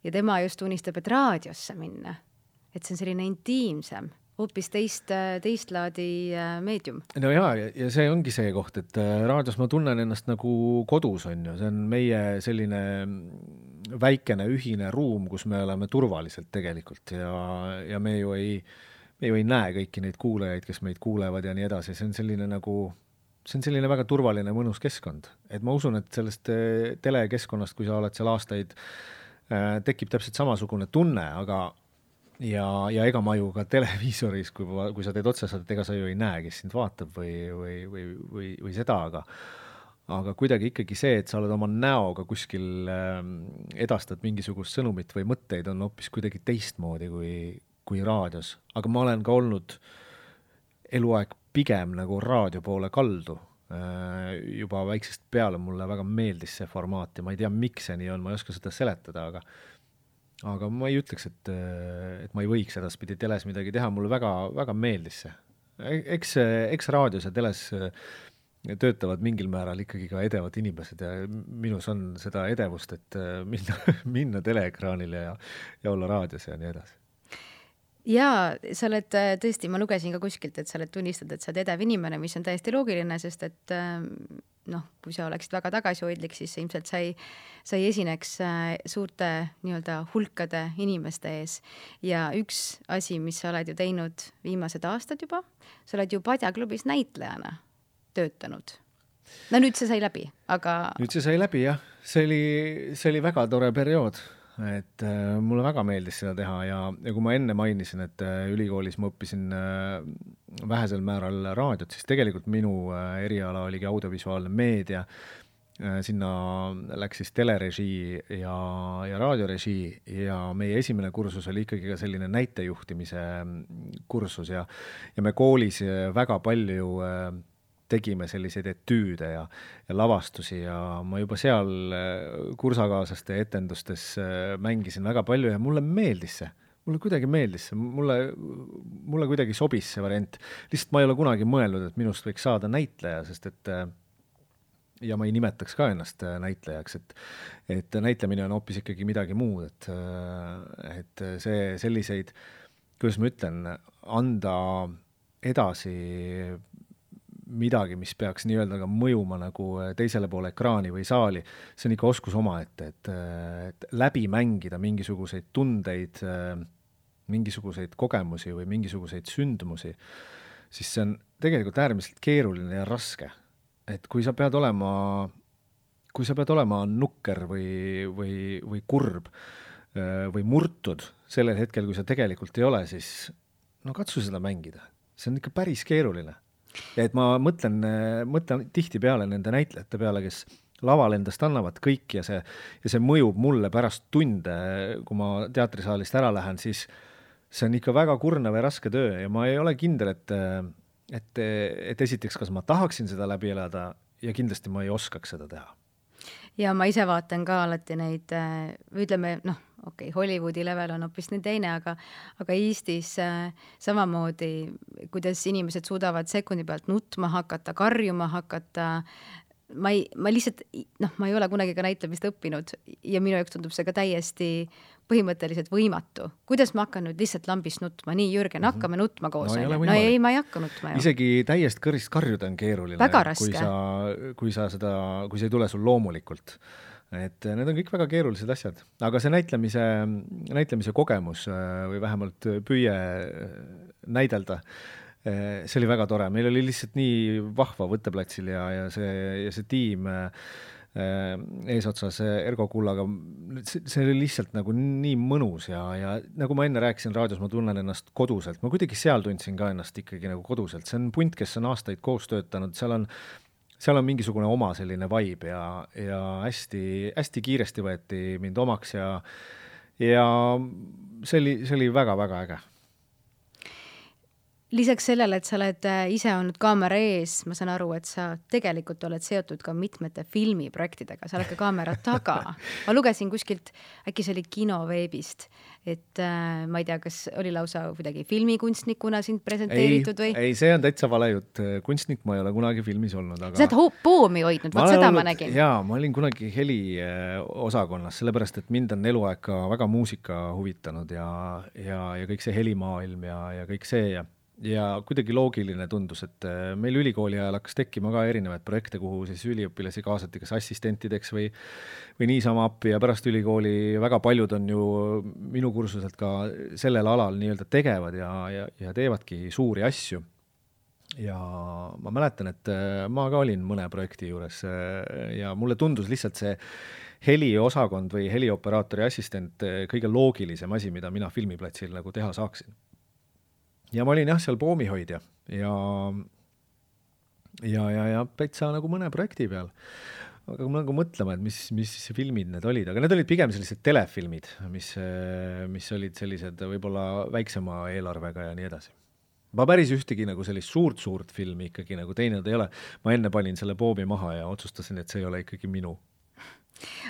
Ja tema just unistab, et raadiosse minna. et see on selline intiimsem, hoopis teist laadi meedium. No ja see ongi see koht, et raadios ma tunnen ennast nagu kodus, on ju, see on meie selline väikene ühine ruum, kus me oleme turvaliselt tegelikult ja me ju ei näe kõiki neid kuulajaid, kes meid kuulevad ja nii edasi, see on selline väga turvaline mõnus keskkond. Et ma usun, et sellest telekeskkonnast, kui sa oled seal aastaid, tekib täpselt samasugune tunne, aga ja ega ma ju ka televiisoris, kui sa teed otsesaadet, ega sa ju ei näe, kes sind vaatab või seda, aga kuidagi ikkagi see, et sa oled oma näoga kuskil edastad mingisugust sõnumit või mõtteid, on hoopis kuidagi teistmoodi kui raadios. Aga ma olen ka olnud eluaeg pigem nagu raadio poole kaldu. Juba väiksest peale mulle väga meeldis see formaat ja ma ei tea, miks see nii on, ma ei oska seda seletada, aga ma ei ütleks, et ma ei võiks edaspidi teles midagi teha, mulle väga, väga meeldis see. Eks raadios ja teles töötavad mingil määral ikkagi ka edevad inimesed ja minus on seda edevust, et minna teleekraanile ja olla raadios ja nii edasi. Jaa, sa oled tõesti, ma lugesin ka kuskilt, et sa oled tunnistad, et sa oled edev inimene, mis on täiesti loogiline, sest et kui sa oleksid väga tagasihoidlik, siis ilmselt sa ei esineks suurte nii-öelda hulkade inimeste ees. Ja üks asi, mis sa oled ju teinud viimased aastad juba, sa oled ju Padja klubis näitlejana töötanud. No nüüd see sai läbi, aga... Nüüd see sai läbi, jah. See oli väga tore periood. Et mulle väga meeldis seda teha ja kui ma enne mainisin, et ülikoolis ma õppisin vähesel määral raadiot, siis tegelikult minu eriala oligi audiovisuaalne meedia. Sinna läks siis telerežii ja raadiorežii ja meie esimene kursus oli ikkagi ka selline näitejuhtimise kursus ja me koolis väga palju tegime selliseid etüüde ja lavastusi ja ma juba seal kursakaaslaste etendustes mängisin väga palju ja mulle meeldis see. Mulle kuidagi meeldis see. Mulle kuidagi sobis see variant. Lihtsalt ma ei ole kunagi mõelnud, et minust võiks saada näitleja, sest et ja ma ei nimetaks ka ennast näitlejaks, et näitlemine on hoopis ikkagi midagi muud, et see selliseid, kuidas ma ütlen, anda edasi midagi, mis peaks nii-öelda ka mõjuma nagu teisele poole ekraani või saali, see on ikka oskus omaette, et läbi mängida mingisuguseid tundeid, mingisuguseid kogemusi või mingisuguseid sündmusi, siis see on tegelikult äärmiselt keeruline ja raske. Et kui sa pead olema nukker või kurb või murtud sellel hetkel, kui sa tegelikult ei ole, siis katsu seda mängida. See on ikka päris keeruline. Ja et ma mõtlen tihti peale nende näitlejate peale, kes laval endast annavad kõik ja see mõjub mulle pärast tunde, kui ma teatrisaalist ära lähen, siis see on ikka väga kurnav ja raske töö ja ma ei ole kindel, et esiteks, kas ma tahaksin seda läbi elada ja kindlasti ma ei oskaks seda teha. Ja ma ise vaatan ka alati neid, ütleme, Hollywoodi level on hoopis nii teine, aga Eestis samamoodi, kuidas inimesed suudavad sekundi pealt nutma hakata, karjuma hakata, ma lihtsalt, ma ei ole kunagi ka näitlemist õppinud ja minu jaoks tundub see ka täiesti põhimõtteliselt võimatu. Kuidas ma hakkan nüüd lihtsalt lambist nutma? Nii, Jürgen, hakkame nutma koos. No ei, ma ei hakka nutma. Isegi täiest kõrist karjuda on keeruline. Väga raske. Kui see ei tule sul loomulikult. Et need on kõik väga keerulised asjad. Aga see näitlemise kogemus või vähemalt püüe näidelda, see oli väga tore. Meil oli lihtsalt nii vahva võtteplatsil ja see tiim eesotsas Ergo Kullaga, see oli lihtsalt nagu nii mõnus ja nagu ma enne rääkisin raadios, ma tunnen ennast koduselt. Ma kuidagi seal tundsin ka ennast ikkagi nagu koduselt. See on punt, kes on aastaid koos töötanud, seal on mingisugune oma selline vibe ja hästi, hästi kiiresti võeti mind omaks ja see oli väga-väga äge. lisaks sellele, et sa oled ise olnud kaamera ees, ma saan aru, et sa tegelikult oled seotud ka mitmete filmiprojektidega, sa oled ka kaamera taga. Ma lugesin kuskilt, äkki see oli Kinoveebist, et ma ei tea, kas oli lausa kuidagi filmikunstnikuna sind presenteeritud või? Ei, see on täitsa vale jutt. Kunstnik ma ei ole kunagi filmis olnud, aga... Sa oled poomi hoidnud, vaat seda ma nägin. Jaa, ma olin kunagi heli osakonnas, sellepärast, et mind on eluaeg ka väga muusika huvitanud ja kõik see helimaailm ja kõik see ja kuidagi loogiline tundus, et meil ülikooli ajal hakkas tekkima ka erinevaid projekte, kuhu siis üliõpilasi kaasati kas assistentideks või niisama appi ja pärast ülikooli väga paljud on ju minu kursuselt ka sellel alal nii-öelda tegevad ja teevadki suuri asju. Ja ma mäletan, et ma ka olin mõne projekti juures ja mulle tundus lihtsalt see heliosakond või helioperaatori assistent kõige loogilisem asi, mida mina filmiplatsil nagu teha saaksin. Ja ma olin seal poomihoidja ja päitsa nagu mõne projekti peal. Aga ma nagu mõtlema, et mis filmid need olid, aga need olid pigem sellised telefilmid, mis olid sellised võib-olla väiksema eelarvega ja nii edasi. Ma päris ühtegi nagu sellist suurt filmi ikkagi nagu teinud ei ole. Ma enne panin selle poomi maha ja otsustasin, et see ei ole ikkagi minu.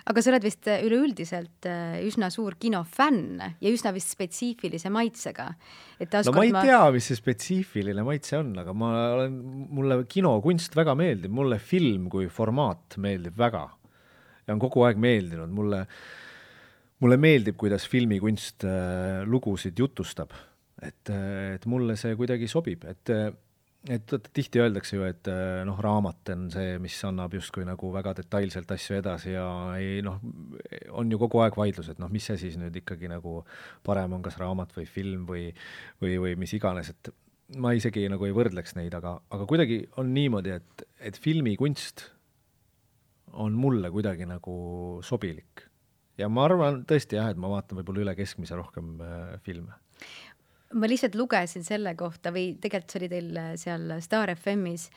Aga sa oled vist üleüldiselt üsna suur kinofänn ja üsna vist spetsiifilise maitsega. No ma ei tea, mis see spetsiifiline maitse on, aga mulle kinokunst väga meeldib. Mulle film kui formaat meeldib väga ja on kogu aeg meeldinud. Mulle meeldib, kuidas filmikunst lugusid jutustab. Et mulle see kuidagi sobib, et tihti öeldakse ju, et raamat on see, mis annab justkui nagu väga detailselt asju edasi ja on ju kogu aeg vaidlus, et mis see siis nüüd ikkagi nagu parem on, kas raamat või film või mis iganes, et ma isegi nagu ei võrdleks neid, aga kuidagi on niimoodi, et filmikunst on mulle kuidagi nagu sobilik. Ja ma arvan tõesti et ma vaatan võib-olla üle keskmise rohkem filme. Ma lihtsalt lugesin selle kohta või tegelikult see oli teil seal Star FM-is.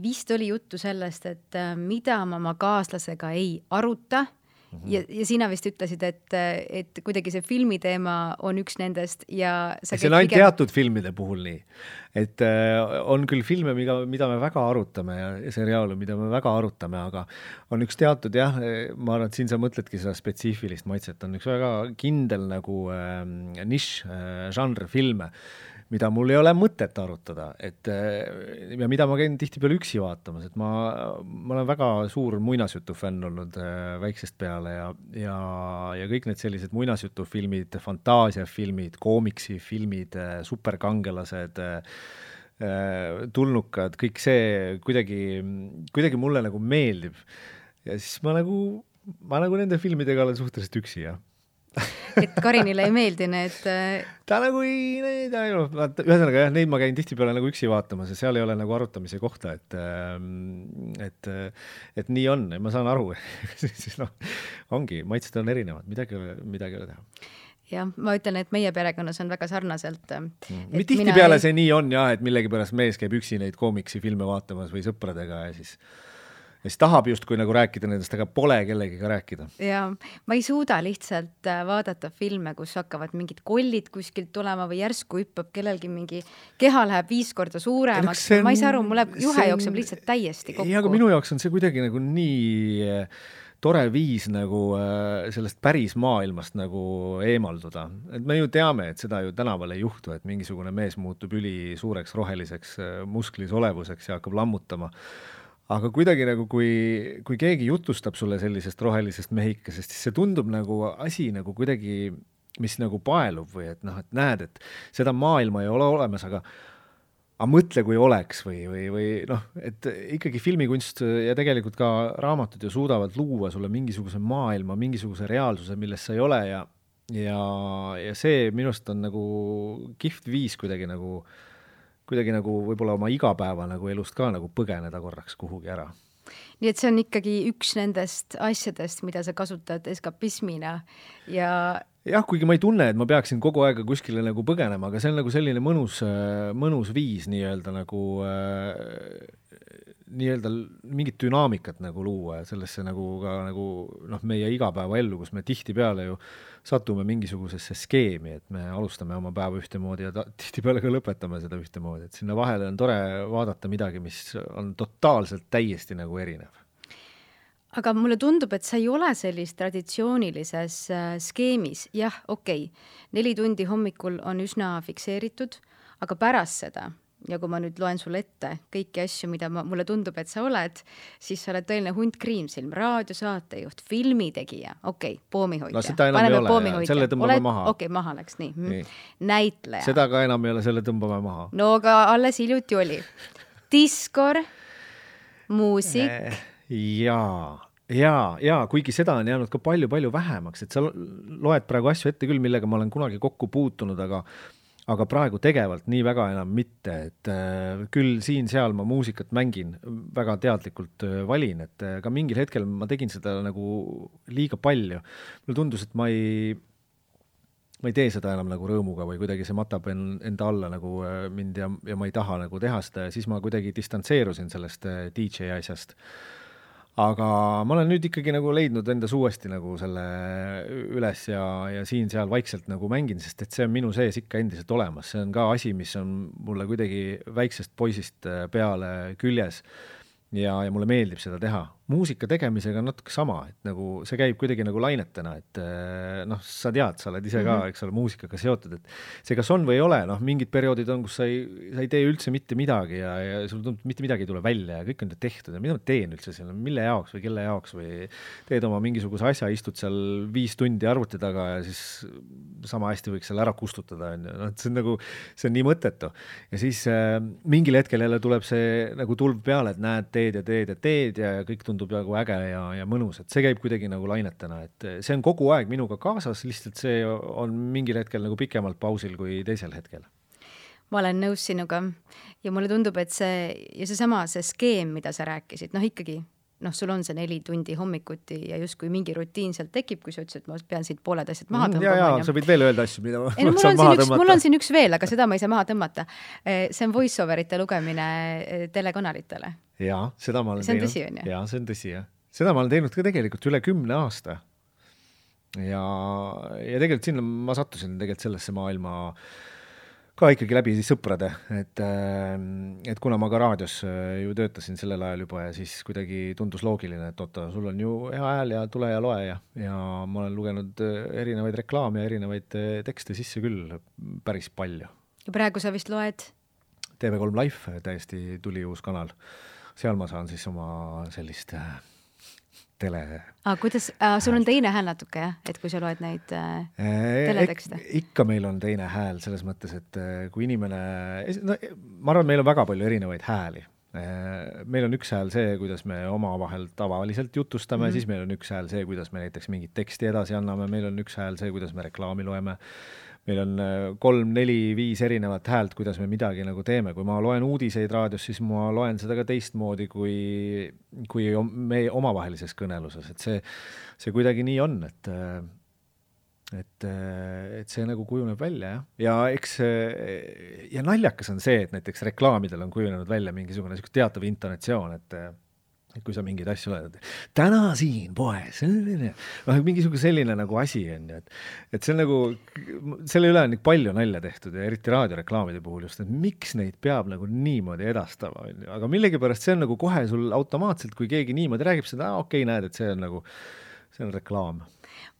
Vist oli juttu sellest, et mida ma oma kaaslasega ei aruta ja sina vist ütlesid, et kuidagi see filmiteema on üks nendest ja see on ainult teatud filmide puhul nii, et on küll filme, mida me väga arutame ja seriaale, mida me väga arutame, aga on üks teatud ma arvan, et siin sa mõtledki seda spetsiifilist maitset, on üks väga kindel nagu nišš, žanr filme, mida mul ei ole mõtet arutada, ja mida ma käin tihtipeale üksi vaatamas, et ma olen väga suur muinasjutufänn olnud väiksest peale ja kõik need sellised muinasjutufilmid, fantaasiafilmid, koomiksifilmid, superkangelased, tulnukad, kõik see kuidagi mulle nagu meeldib. Ja siis ma nagu nende filmidega olen suhteliselt üksi, et Karinile ei meeldi need... Ta nagu ühesõnaga neid ma käin tihtipeale nagu üksi vaatamas ja seal ei ole nagu arutamise kohta, et nii on, ma saan aru. Ongi, maitsed on erinevad, midagi ei ole teha. Jah, ma ütlen, et meie perekonnas on väga sarnaselt. Tihtipeale see nii on et millegipärast mees käib üksi neid koomiksi filme vaatamas või sõpradega ja siis tahab justkui nagu rääkida nendest, aga pole kellegiga rääkida. Ja ma ei suuda lihtsalt vaadata filme, kus hakkavad mingid kollid kuskilt tulema või järsku hüppab kellelgi mingi keha läheb 5 korda suuremaks. Ma ei saa aru, mulle juhe jookseb lihtsalt täiesti kokku. Ja aga minu jaoks on see kuidagi nagu nii tore viis nagu sellest päris maailmast nagu eemalduda. Et me ju teame, et seda ju tänaval ei juhtu, et mingisugune mees muutub üli suureks roheliseks musklis olevuseks ja hakkab lammutama. Aga kuidagi nagu, kui keegi jutustab sulle sellisest rohelisest mehikesest, siis see tundub nagu asi nagu kuidagi, mis nagu paelub või et näed, et seda maailma ei ole olemas, aga mõtle, kui oleks või et ikkagi filmikunst ja tegelikult ka raamatud ju suudavad luua sulle mingisuguse maailma, mingisuguse reaalsuse, milles sa ei ole ja see minust on nagu kihvt viis kuidagi nagu võib-olla oma igapäeva nagu elust ka nagu põgeneda korraks kuhugi ära. Nii et see on ikkagi üks nendest asjadest, mida sa kasutad eskapismina ja... Jah, kuigi ma ei tunne, et ma peaksin kogu aega kuskile nagu põgenema, aga see on nagu selline mõnus viis nii-öelda nii-öelda mingit dünaamikat nagu luua ja sellesse nagu ka nagu meie igapäevaellu, kus me tihtipeale ju satume mingisugusesse skeemi, et me alustame oma päeva ühtemoodi ja tihtipeale ka lõpetame seda ühtemoodi, et sinna vahele on tore vaadata midagi, mis on totaalselt täiesti nagu erinev. Aga mulle tundub, et sa ei ole sellist traditsioonilises skeemis. Jah, okei. 4 tundi hommikul on üsna fikseeritud, aga pärast seda, ja kui ma nüüd loen sulle ette kõiki asju, mida mulle tundub, et sa oled, siis sa oled tõeline hunt kriimsilm, raadiosaatejuht, filmitegija, poomihoidja. No seda enam ei ole, selle tõmbame maha. Maha läks, nii. Näitleja. Seda ka enam ei ole, selle tõmbame maha. No aga alles hiljuti oli. Diskor, muusik. Ja, kuigi seda on jäänud ka palju vähemaks, et sa loed praegu asju ette küll, millega ma olen kunagi kokku puutunud, aga praegu tegevalt nii väga enam mitte, et küll siin-seal ma muusikat mängin, väga teadlikult valin, et ka mingil hetkel ma tegin seda nagu liiga palju. Mulle tundus, et ma ei tee seda enam nagu rõõmuga või kuidagi see matab enda alla nagu mind ja ma ei taha nagu teha seda ja siis ma kuidagi distantseerusin sellest DJ asjast. Aga ma olen nüüd ikkagi nagu leidnud endas uuesti nagu selle üles ja siin-seal vaikselt nagu mängin, sest et see on minu sees ikka endiselt olemas. See on ka asi, mis on mulle kuidagi väiksest poisist peale küljes ja mulle meeldib seda teha. Muusika tegemisega on natuke sama, et nagu see käib kuidagi nagu lainetena, et sa tead, sa oled ise ka, eks ole, muusikaga seotud, et see kas on või ei ole, mingid perioodid on, kus sa ei tee üldse mitte midagi ja sul tundub, mitte midagi ei tule välja ja kõik on tehtud ja mida ma teen üldse seal, mille jaoks või kelle jaoks või teed oma mingisuguse asja, istud seal 5 tundi arvuti taga ja siis sama hästi võiks seal ära kustutada. See on nagu, see on nii mõttetu. Ja siis mingil hetkel jälle tuleb see nagu tulv peale, et näed, teed ja kõik tundub nagu äge ja mõnus, et see käib kuidagi nagu lainetena, et see on kogu aeg minuga kaasas, lihtsalt see on mingil hetkel nagu pikemalt pausil kui teisel hetkel. Ma olen nõus sinuga ja mulle tundub, et see skeem, mida sa rääkisid, ikkagi, sul on see 4 tundi hommikuti ja justkui mingi rutiin sealt tekib, kui sa ütlesid, et ma pean siit pooled asjad maha tõmbama. Ja, sa võid veel öelda asju, mida ma saan maha tõmmata. Mul on siin üks veel, aga seda ma ei saa maha tõmmata. See on voice-overite lugemine telekanalitele. Ja, seda ma olen teinud. See on tõsi, on ju? Ja, see on tõsi, jah. Seda ma olen teinud ka tegelikult üle 10 aasta. Ja tegelikult sinna ma sattusin tegelikult sellesse maailma ka ikkagi läbi sõprade, et kuna ma ka raadios ju töötasin sellel ajal juba ja siis kuidagi tundus loogiline, et oota, sul on ju hea hääl ja tule ja loe ja ma olen lugenud erinevaid reklaame ja erinevaid tekste sisse küll päris palju. Ja praegu sa vist loed? TV3 Live täiesti tuli uus kanal. Seal ma saan siis oma sellist tele. Kuidas, sul on teine hääl natuke, jah? Et kui sa loed neid teletekste? Ikka meil on teine hääl selles mõttes, et kui inimene, ma arvan, meil on väga palju erinevaid hääli. Meil on üks hääl see, kuidas me omavahel tavaliselt jutustame, siis meil on üks hääl see, kuidas me näiteks mingit teksti edasi anname, meil on üks hääl see, kuidas me reklaami loeme. Meil on 3, 4, 5 erinevat häält, kuidas me midagi nagu teeme. Kui ma loen uudiseid raadios, siis ma loen seda ka teistmoodi kui meie omavahelises kõneluses. Et see kuidagi nii on, et see nagu kujuneb välja. Ja eks ja naljakas on see, et näiteks reklaamidel on kujunenud välja mingisugune teatav intonatsioon, et kui sa mingeid asju oled, täna siin poes, mingisugune selline nagu asi on, et see on nagu, selle üle on palju nalja tehtud ja eriti raadioreklaamide puhul just, et miks neid peab nagu niimoodi edastama, aga millegipärast see on nagu kohe sul automaatselt, kui keegi niimoodi räägib seda, okei, näed, et see on reklaam.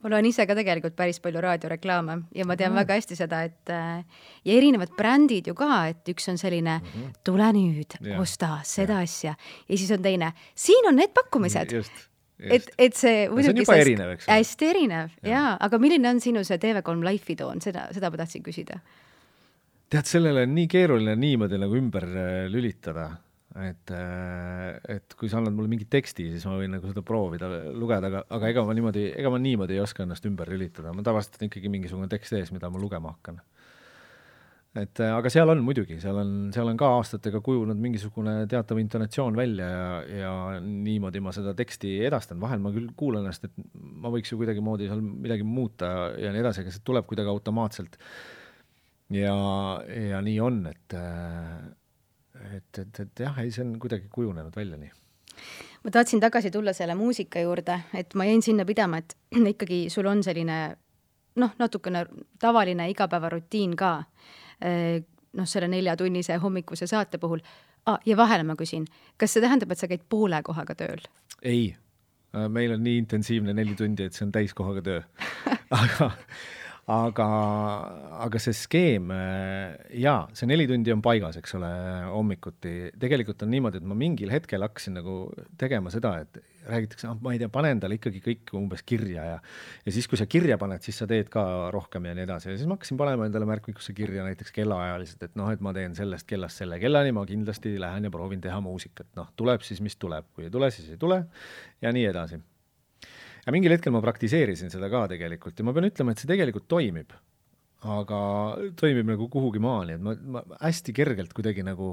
Ma loen ise ka tegelikult päris palju raadioreklaame ja ma tean väga hästi seda, et ja erinevad brändid ju ka, et üks on selline tule nüüd, osta seda asja ja siis on teine, siin on need pakkumised. Just. Et see on juba erinev, eks? Hästi erinev, jaa. Aga milline on sinu see TV3 Life'i toon? Seda ma tahtsin küsida. Tead, sellele on nii keeruline niimoodi nagu ümber lülitada. Et kui sa annad mulle mingi teksti, siis ma võin nagu seda proovida lugeda, aga ega ma niimoodi ei oska ennast ümber lülitada. Ma tavaliselt on ikkagi mingisugune tekst ees, mida ma lugema hakkan. Aga seal on muidugi, seal on ka aastatega kujunud mingisugune teatav intonatsioon välja ja niimoodi ma seda teksti edastan. Vahel ma küll kuulen ennast, et ma võiks ju kuidagi moodi seal midagi muuta ja nii edasi, aga see tuleb kuidagi automaatselt. Ja nii on, et jah, ei, see on kuidagi kujunenud välja nii. Ma tahtsin tagasi tulla selle muusika juurde, et ma jäin sinna pidama, et ikkagi sul on selline natukene tavaline igapäevarutiin ka, selle 4-tunnise hommikuse saate puhul. Ja vahele ma küsin, kas see tähendab, et sa käid poole kohaga tööl? Ei, meil on nii intensiivne 4 tundi, et see on täiskohaga töö. aga see skeem, jaa, see 4 tundi on paigas, eks ole, hommikuti. Tegelikult on niimoodi, et ma mingil hetkel hakkasin nagu tegema seda, et räägitakse, ma ei tea, panen talle ikkagi kõik umbes kirja ja siis, kui sa kirja paned, siis sa teed ka rohkem ja nii edasi. Ja siis ma hakkasin panema endale märkmikusse kirja näiteks kellaajaliselt, et et ma teen sellest kellast selle kellani, ma kindlasti lähen ja proovin teha muusikat. Tuleb siis, mis tuleb. Kui ei tule, siis ei tule ja nii edasi. Ja mingil hetkel ma praktiseerisin seda ka tegelikult ja ma pean ütlema, et see tegelikult toimib, aga toimib nagu kuhugi maani, et ma hästi kergelt kuidagi nagu,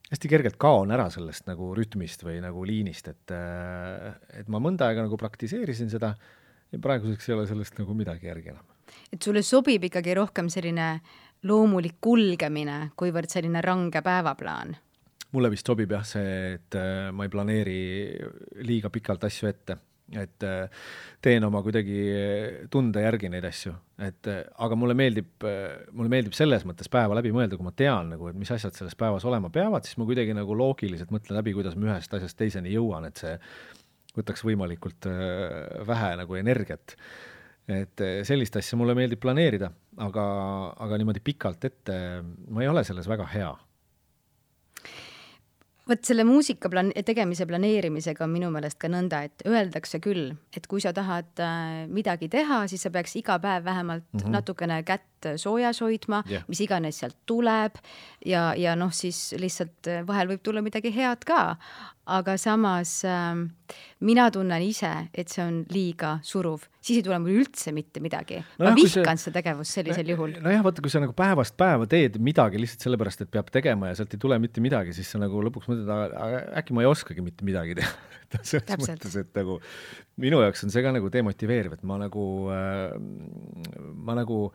hästi kergelt kaon ära sellest nagu rütmist või nagu liinist, et ma mõnda aega nagu praktiseerisin seda ja praeguseks ei ole sellest nagu midagi järgi enam. Et sulle sobib ikkagi rohkem selline loomulik kulgemine, kuivõrd selline range päevaplaan? Mulle vist sobib jah see, et ma ei planeeri liiga pikalt asju ette. Et teen oma kuidagi tunde järgi neid asju, aga mulle meeldib selles mõttes päeva läbi mõelda, kui ma tean nagu, et mis asjad selles päevas olema peavad, siis ma kuidagi nagu loogiliselt mõtlen läbi, kuidas ma ühest asjast teiseni jõuan, et see võtaks võimalikult vähe nagu energiat. Et sellist asja mulle meeldib planeerida, aga niimoodi pikalt ette ma ei ole selles väga hea. Võt selle muusika tegemise planeerimisega on minu meelest ka nõnda, et öeldakse küll, et kui sa tahad midagi teha, siis sa peaks iga päev vähemalt natukene kätt soojas hoidma, mis iganes sealt tuleb ja siis lihtsalt vahel võib tulla midagi head ka, aga samas mina tunnen ise, et see on liiga suruv. Siis ei tule mul üldse mitte midagi. Ma vihkan seda tegevust sellisel juhul. Jah, vaata, kui sa nagu päevast päeva teed midagi lihtsalt sellepärast, et peab tegema ja sealt ei tule mitte midagi, siis sa nagu lõpuks mõtled, äkki ma ei oskagi mitte midagi teha. Selles mõttes, et nagu minu jaoks on see ka nagu demotiveeriv, et ma nagu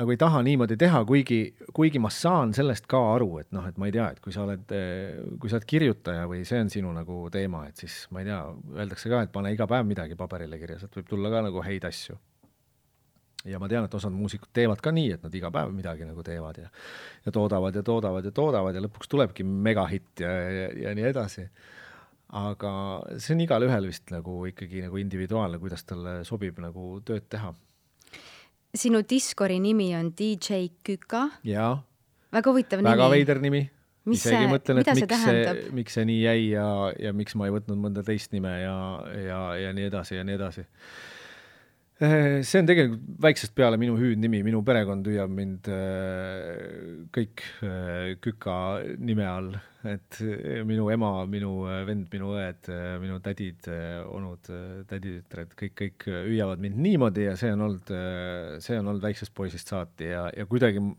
ei taha niimoodi teha, kuigi ma saan sellest ka aru, et et ma ei tea, et kui sa oled kirjutaja või see on sinu nagu teema, et siis ma ei tea, öeldakse ka, et pane iga päev midagi paberile kirja, sealt võib tulla ka nagu häid asju. Ja ma tean, et osad muusikud teevad ka nii, et nad iga päev midagi nagu teevad ja toodavad ja lõpuks tulebki megahitt ja nii edasi. Aga see on igal ühel vist nagu ikkagi nagu individuaalne, kuidas talle sobib nagu tööd teha. Sinu Discordi nimi on DJ Küka. Jaa. Väga huvitav nimi. Väga veider nimi. Isegi mõtlen, et miks see nii jäi ja miks ma ei võtnud mõnda teist nime ja nii edasi ja nii edasi. See on tegelikult väiksest peale minu hüüdnimi, minu perekond hüüab mind kõik Küka nime all, et minu ema, minu vend, minu õed, minu tädid, onud, täditütred, kõik hüüavad mind niimoodi ja see on olnud väiksest poisist saati ja kuidagi ma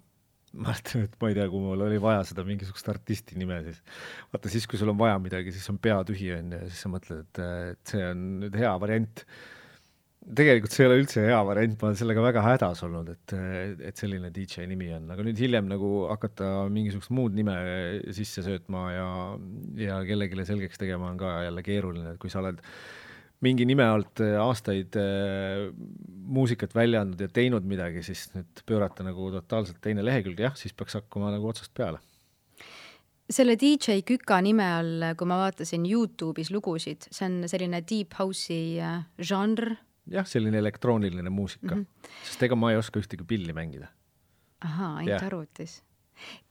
mõtlen, et ma ei tea, kui mul oli vaja seda mingisugust artisti nime, siis vaata siis, kui sul on vaja midagi, siis on pea tühi ja siis sa mõtled, et see on nüüd hea variant. Tegelikult see ei ole üldse hea variant, ma olen sellega väga hädas olnud, et selline DJ nimi on, aga nüüd hiljem nagu hakata mingisugust muud nime sisse söötma ja kellegile selgeks tegema on ka jälle keeruline, et kui sa oled mingi nime alt aastaid muusikat välja andnud ja teinud midagi, siis nüüd pöörata nagu totaalselt teine lehekülg, jah, siis peaks hakkama nagu otsast peale. Selle DJ Küka nime all, kui ma vaatasin YouTube'is lugusid, see on selline deep house'i žanr. Jah, selline elektrooniline muusika, sest ega ma ei oska ühtegi pilli mängida. Ahaa, ainult arvutis.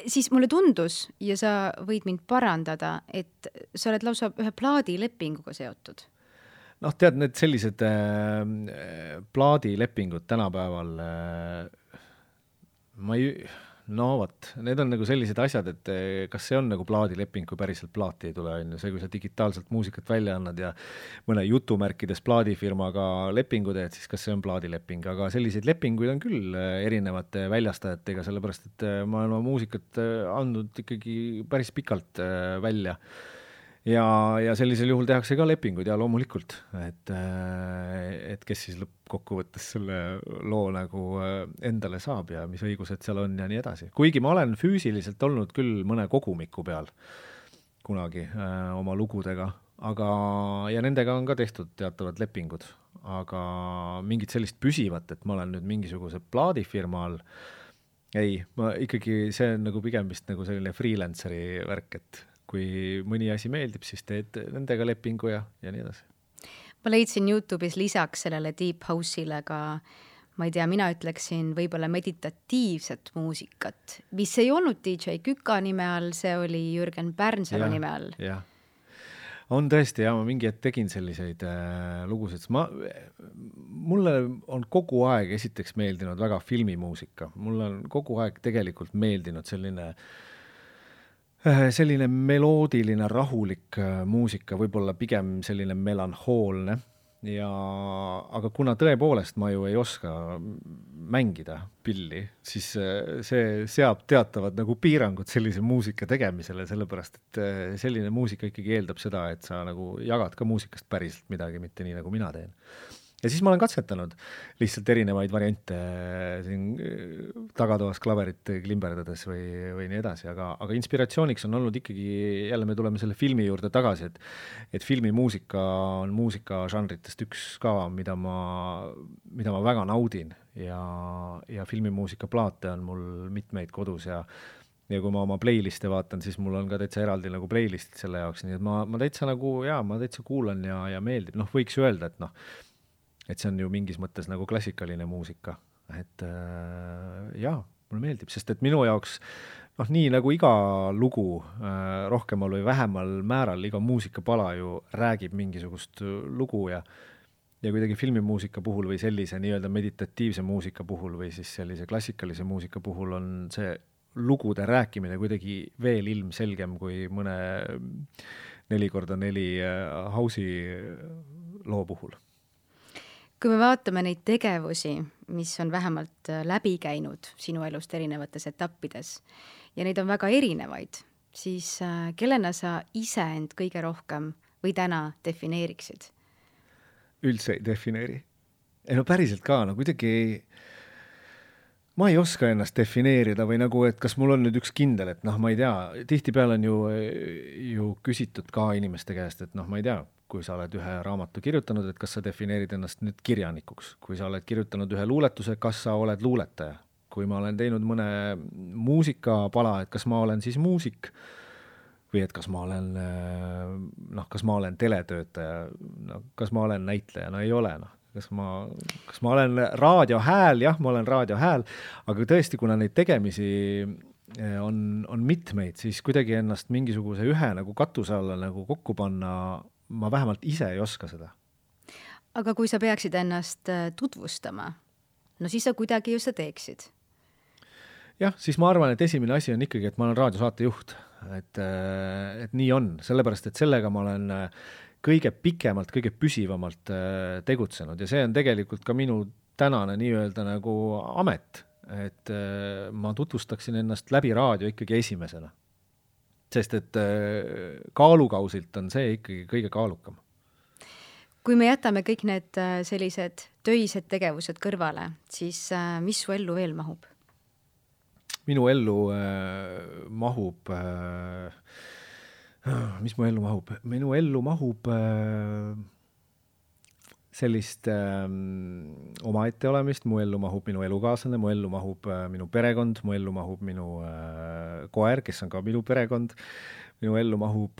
Siis mulle tundus, ja sa võid mind parandada, et sa oled lausa ühe plaadilepinguga seotud. Tead, need sellised plaadilepingud tänapäeval, need on nagu sellised asjad, et kas see on nagu plaadileping, kui päriselt plaati ei tule, on see, kui sa digitaalselt muusikat välja annad ja mõne jutumärkides plaadifirmaga lepingu teed, siis kas see on plaadileping, aga selliseid lepinguid on küll erinevate väljastajatega, sellepärast, et ma olen oma muusikat andnud ikkagi päris pikalt välja ja sellisel juhul tehakse ka lepingud ja loomulikult, et kes siis lõppkokkuvõttes selle loo nagu endale saab ja mis õigused seal on ja nii edasi. Kuigi ma olen füüsiliselt olnud küll mõne kogumiku peal kunagi oma lugudega, ja nendega on ka tehtud teatavad lepingud, aga mingit sellist püsivat, et ma olen nüüd mingisuguse plaadifirma all, ei, ma ikkagi, see on nagu pigem vist nagu selline freelanceri värk, et kui mõni asi meeldib, siis teed nendega lepingu ja nii edasi. Ma leidsin YouTube'is lisaks sellele Deep House'ile ka, ma ei tea, mina ütleksin võib-olla meditatiivset muusikat, mis ei olnud DJ Küka nime all, see oli Jürgen Pärnsalu nime all. Jah. On tõesti, ma mingi hetk tegin selliseid lugusid. Mulle on kogu aeg esiteks meeldinud väga filmimuusika. Mulle on kogu aeg tegelikult meeldinud selline meloodiline, rahulik muusika, võib-olla pigem selline melanhoolne, aga kuna tõepoolest ma ju ei oska mängida pilli, siis see seab teatavad nagu piirangud sellise muusika tegemisele, sellepärast et selline muusika ikkagi eeldab seda, et sa nagu jagad ka muusikast päriselt midagi, mitte nii nagu mina teen. Ja siis ma olen katsetanud lihtsalt erinevaid variante siin tagatoas klaverit klimberdades või nii edasi, aga inspiratsiooniks on olnud ikkagi, jälle me tuleme selle filmi juurde tagasi, et filmimuusika on muusika žanritest üks ka, mida ma väga naudin ja filmimuusika plaate on mul mitmeid kodus ja kui ma oma playliste vaatan, siis mul on ka täitsa eraldi nagu playlistid selle jaoks, nii et ma täitsa nagu, ma täitsa kuulan ja meeldib, võiks ju öelda, et see on ju mingis mõttes nagu klassikaline muusika, et mulle meeldib, sest et minu jaoks nii nagu iga lugu rohkemal või vähemal määral, iga muusikapala ju räägib mingisugust lugu ja kuidagi filmimuusika puhul või sellise nii-öelda meditatiivse muusika puhul või siis sellise klassikalise muusika puhul on see lugude rääkimine kuidagi veel ilmselgem kui mõne 4x4 house'i loo puhul. Kui me vaatame neid tegevusi, mis on vähemalt läbi käinud sinu elust erinevates etappides ja neid on väga erinevaid, siis kellena sa ise end kõige rohkem või täna defineeriksid? Üldse ei defineeri. Päriselt ka, kuidagi ma ei oska ennast defineerida või nagu, et kas mul on nüüd üks kindel, et ma ei tea, tihtipeale on ju küsitud ka inimeste käest, et ma ei tea, kui sa oled ühe raamatu kirjutanud, et kas sa defineerid ennast nüüd kirjanikuks, kui sa oled kirjutanud ühe luuletuse, kas sa oled luuletaja, kui ma olen teinud mõne muusikapala, et kas ma olen siis muusik või et kas ma olen teletöötaja, kas ma olen näitleja, ei ole, kas ma olen raadiohääl, jah, ma olen raadiohääl, aga tõesti, kuna neid tegemisi on mitmeid, siis kuidagi ennast mingisuguse ühe nagu katuse alla nagu kokku panna, ma vähemalt ise ei oska seda. Aga kui sa peaksid ennast tutvustama, siis sa kuidagi ju sa teeksid. Jah, siis ma arvan, et esimene asi on ikkagi, et ma olen raadiosaatejuht, et nii on, sellepärast, et sellega ma olen kõige pikemalt, kõige püsivamalt tegutsenud ja see on tegelikult ka minu tänane nii-öelda nagu amet, et ma tutvustaksin ennast läbi raadio ikkagi esimesena. Sest et kaalukausilt on see ikkagi kõige kaalukam. Kui me jätame kõik need sellised töised tegevused kõrvale, siis mis su ellu veel mahub? Minu ellu mahub... Mis mu ellu mahub? Minu ellu mahub sellist omaette olemist, mu ellu mahub minu elukaaslane, mu ellu mahub minu perekond, mu ellu mahub minu koer, kes on ka minu perekond, minu ellu mahub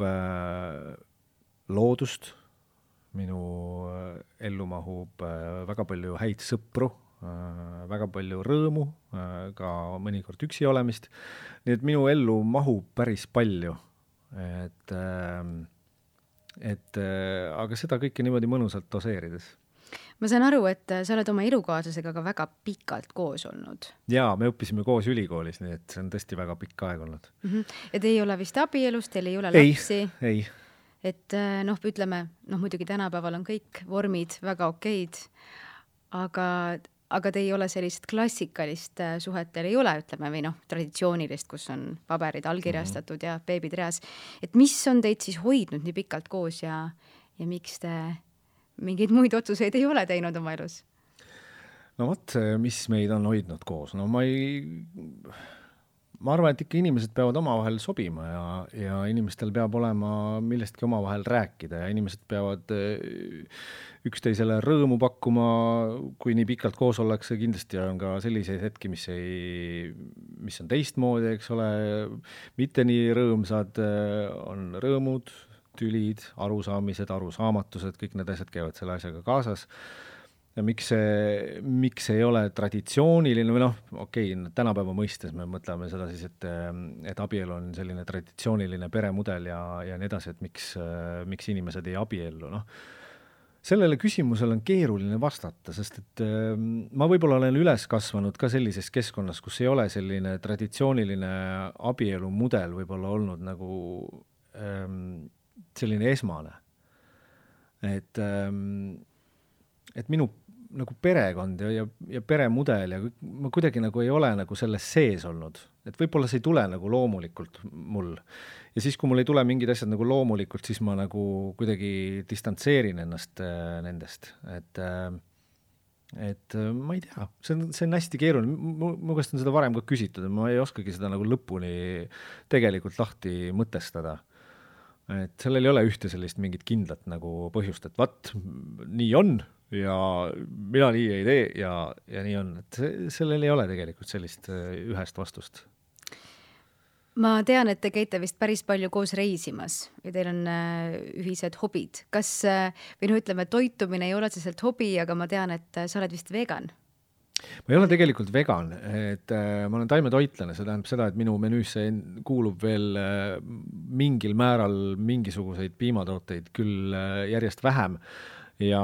loodust, minu ellu mahub väga palju häid sõpru, väga palju rõõmu, ka mõnikord üksi olemist, nii et minu ellu mahub päris palju, aga seda kõike niimoodi mõnusalt doseerides. Ma saan aru, et sa oled oma elukaaslasega ka väga pikalt koos olnud. Jaa, me õppisime koos ülikoolis, nii et see on tõesti väga pikk aeg olnud. Ja te ei ole vist abielus, teil ei ole lapsi? Ei. Et ütleme, muidugi tänapäeval on kõik vormid väga okeid, aga aga te ei ole sellist klassikalist suhet, teil ei ole, ütleme, või traditsioonilist, kus on paberid allkirjastatud ja beebid reas. Et mis on teid siis hoidnud nii pikalt koos ja miks te mingeid muid otsuseid ei ole teinud oma elus? No vot, mis meid on hoidnud koos? No ma arvan, et ikka inimesed peavad omavahel sobima ja inimestel peab olema millestki omavahel rääkida ja inimesed peavad üksteisele rõõmu pakkuma, kui nii pikalt koos ollakse. Kindlasti on ka selliseid hetki, mis on teistmoodi, eks ole, mitte nii rõõmsad, on rõõmud, tülid, arusaamised, arusaamatused, kõik need asjad käivad selle asjaga kaasas. Ja miks ei ole traditsiooniline või okei, tänapäeva mõistes me mõtleme seda siis, et abielu on selline traditsiooniline peremudel ja nii edasi, et miks inimesed ei abiellu. Sellele küsimusele on keeruline vastata, sest et ma võib-olla olen üles kasvanud ka sellises keskkonnas, kus ei ole selline traditsiooniline abielu mudel võib-olla olnud nagu selline esmane. Et minu nagu perekond ja peremudel ja ma kuidagi nagu ei ole nagu selles sees olnud. Et võib-olla see ei tule nagu loomulikult mul. Ja siis, kui mul ei tule mingid asjad nagu loomulikult, siis ma nagu kuidagi distantseerin ennast nendest. Et ma ei tea, see on hästi keeruline. Mu käest on seda varem ka küsitud, ma ei oskagi seda nagu lõpuni tegelikult lahti mõtestada. Et sellel ei ole ühte sellist mingit kindlat nagu põhjust, et vaat, nii on ja mina nii ei tee ja nii on. Et sellel ei ole tegelikult sellist ühest vastust. Ma tean, et te käite vist päris palju koos reisimas ja teil on ühised hobid. Kas, või ütleme, toitumine ei ole otseselt hobi, aga ma tean, et sa oled vist vegan. Ma ei ole tegelikult vegan, et ma olen taimetoitlane, see tähendab seda, et minu menüüsse kuulub veel mingil määral mingisuguseid piimatooteid, küll järjest vähem ja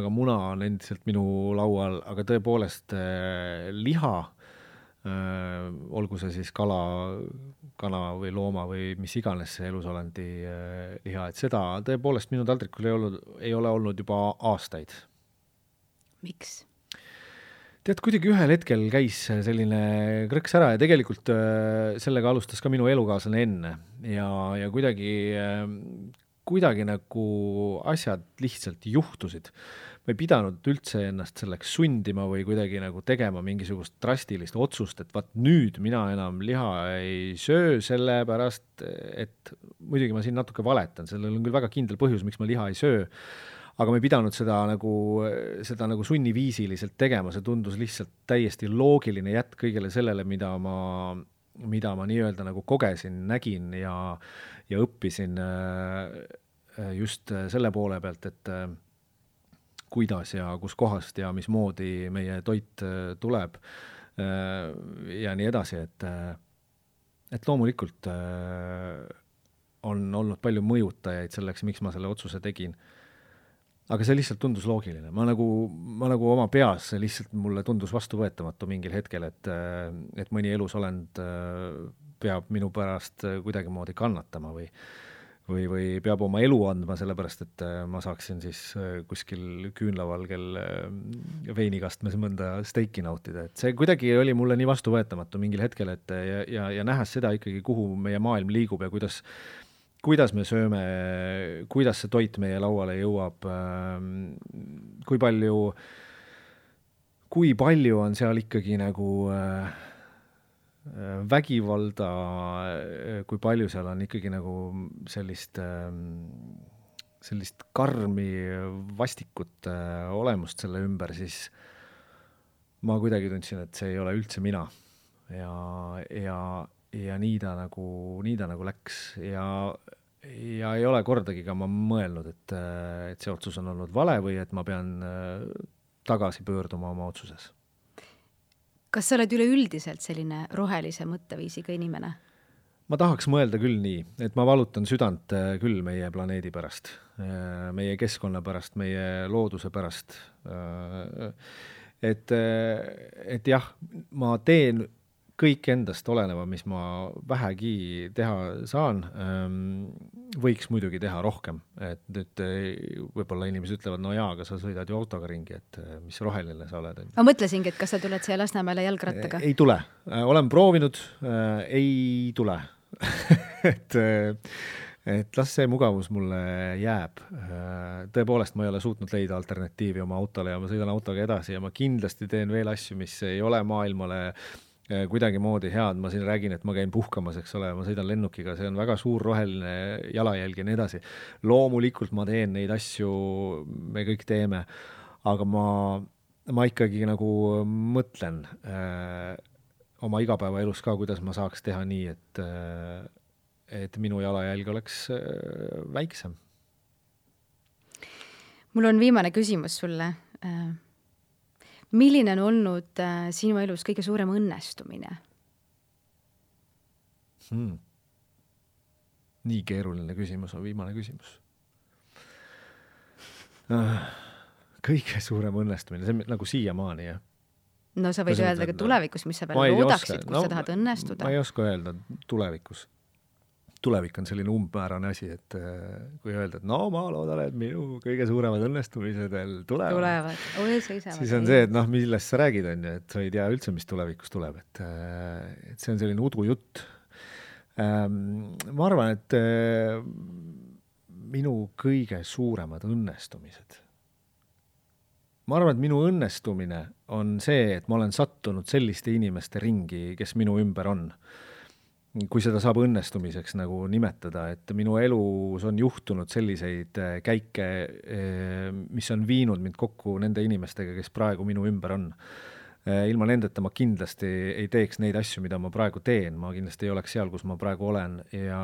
ka muna on endiselt minu laual, aga tõepoolest liha, olgu see siis kana või looma või mis iganes see elusolandi liha, et seda tõepoolest minu taldrikul ei ole olnud juba aastaid. Miks? Tead, kuidagi ühel hetkel käis selline krõks ära ja tegelikult sellega alustas ka minu elukaaslane enne ja kuidagi nagu asjad lihtsalt juhtusid. Ma ei pidanud üldse ennast selleks sundima või kuidagi nagu tegema mingisugust drastilist otsust, et vaat nüüd mina enam liha ei söö sellepärast, et muidugi ma siin natuke valetan, sellel on küll väga kindel põhjus, miks ma liha ei söö, aga ma ei pidanud seda nagu sunniviisiliselt tegema, see tundus lihtsalt täiesti loogiline jätk kõigele sellele, mida ma nii-öelda nagu kogesin, nägin ja õppisin just selle poole pealt, et kuidas ja kus kohast ja mismoodi meie toit tuleb ja nii edasi, et loomulikult on olnud palju mõjutajaid selleks, miks ma selle otsuse tegin. Aga see lihtsalt tundus loogiline. Ma nagu oma peas lihtsalt mulle tundus vastuvõetamatu mingil hetkel, et mõni elusolend peab minu pärast kuidagi moodi kannatama või peab oma elu andma sellepärast, et ma saaksin siis kuskil küünlavalgel veinikastmes mõnda steiki nautida. Et see kuidagi oli mulle nii vastuvõetamatu mingil hetkel, et ja nähes seda ikkagi, kuhu meie maailm liigub ja kuidas me sööme, kuidas see toit meie lauale jõuab, kui palju on seal ikkagi nagu vägivalda, kui palju seal on ikkagi nagu sellist karmi vastikut olemust selle ümber, siis ma kuidagi tundsin, et see ei ole üldse mina ja nii ta nagu läks ja ei ole kordagi ka ma mõelnud, et see otsus on olnud vale või et ma pean tagasi pöörduma oma otsuses. Kas sa oled üleüldiselt selline rohelise mõtteviisiga inimene? Ma tahaks mõelda küll nii, et ma valutan südant küll meie planeedi pärast, meie keskkonna pärast, meie looduse pärast. Et jah, ma teen kõik endast oleneva, mis ma vähegi teha saan, võiks muidugi teha rohkem. Et nüüd võib-olla inimesed ütlevad, no jaa, aga sa sõidad ju autoga ringi, et mis roheline sa oled. Ma mõtlesingi, et kas sa tuled siia Lasnamäele jalgrattaga? Ei tule. Olen proovinud, ei tule. et las see mugavus mulle jääb. Tõepoolest, ma ei ole suutnud leida alternatiivi oma autole ja ma sõidan autoga edasi ja ma kindlasti teen veel asju, mis ei ole maailmale kuidagi moodi head. Ma siin räägin, et ma käin puhkamas, eks ole, ma sõidan lennukiga, see on väga suur roheline jalajälg ja nii edasi. Loomulikult ma teen neid asju, me kõik teeme, aga ma ikkagi nagu mõtlen oma igapäevaelus ka, kuidas ma saaks teha nii, et minu jalajälg oleks väiksem. Mul on viimane küsimus sulle. Milline on olnud sinu elus kõige suurem õnnestumine? Nii keeruline küsimus on viimane küsimus. Kõige suurem õnnestumine, see nagu siiamaani, jah? No sa võid öelda ka tulevikus, mis sa veel loodaksid, kus sa tahad õnnestuda. Ma ei oska öelda tulevikus. Tulevik on selline umbmäärane asi, et kui öelda, et no ma loodan, et minu kõige suuremad õnnestumised veel tulevad. Siis on see, et millest sa räägid, on ju, et sa ei tea üldse, mis tulevikus tuleb. Et see on selline udujutt. Ma arvan, et minu kõige suuremad õnnestumised. Ma arvan, et minu õnnestumine on see, et ma olen sattunud selliste inimeste ringi, kes minu ümber on. Kui seda saab õnnestumiseks nagu nimetada, et minu elus on juhtunud selliseid käike, mis on viinud mind kokku nende inimestega, kes praegu minu ümber on. Ilma nendeta ma kindlasti ei teeks neid asju, mida ma praegu teen. Ma kindlasti ei oleks seal, kus ma praegu olen ja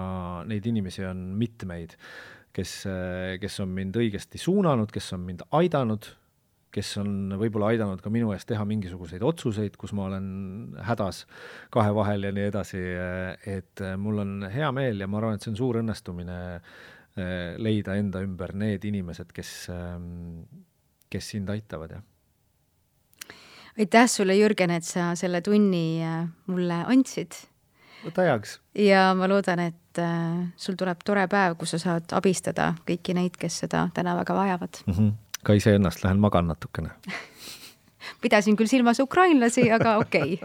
neid inimesi on mitmeid, kes on mind õigesti suunanud, kes on mind aidanud, kes on võib-olla aidanud ka minu eest teha mingisuguseid otsuseid, kus ma olen hädas kahe vahel ja nii edasi, et mul on hea meel ja ma arvan, et see on suur õnnestumine leida enda ümber need inimesed, kes sind aitavad. Ja. Aitäh sulle, Jürgen, et sa selle tunni mulle andsid. Võta heaks. Ja ma loodan, et sul tuleb tore päev, kus sa saad abistada kõiki neid, kes seda täna väga vajavad. Ka ise ennast lähen magan natukene. Pidasin küll silmas ukrainlasi, aga okei.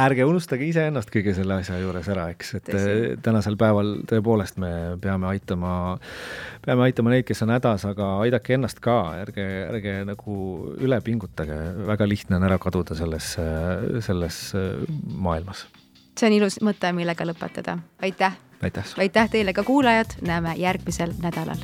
Ärge unustage ise ennast kõige selle asja juures ära, eks, et tänasel päeval tõepoolest me peame aitama neid, kes on hädas, aga aidake ennast ka, ärge nagu üle pingutage, väga lihtne on ära kaduda selles maailmas. See on ilus mõte, millega lõpetada. Aitäh! Aitäh teile ka kuulajad, näeme järgmisel nädalal.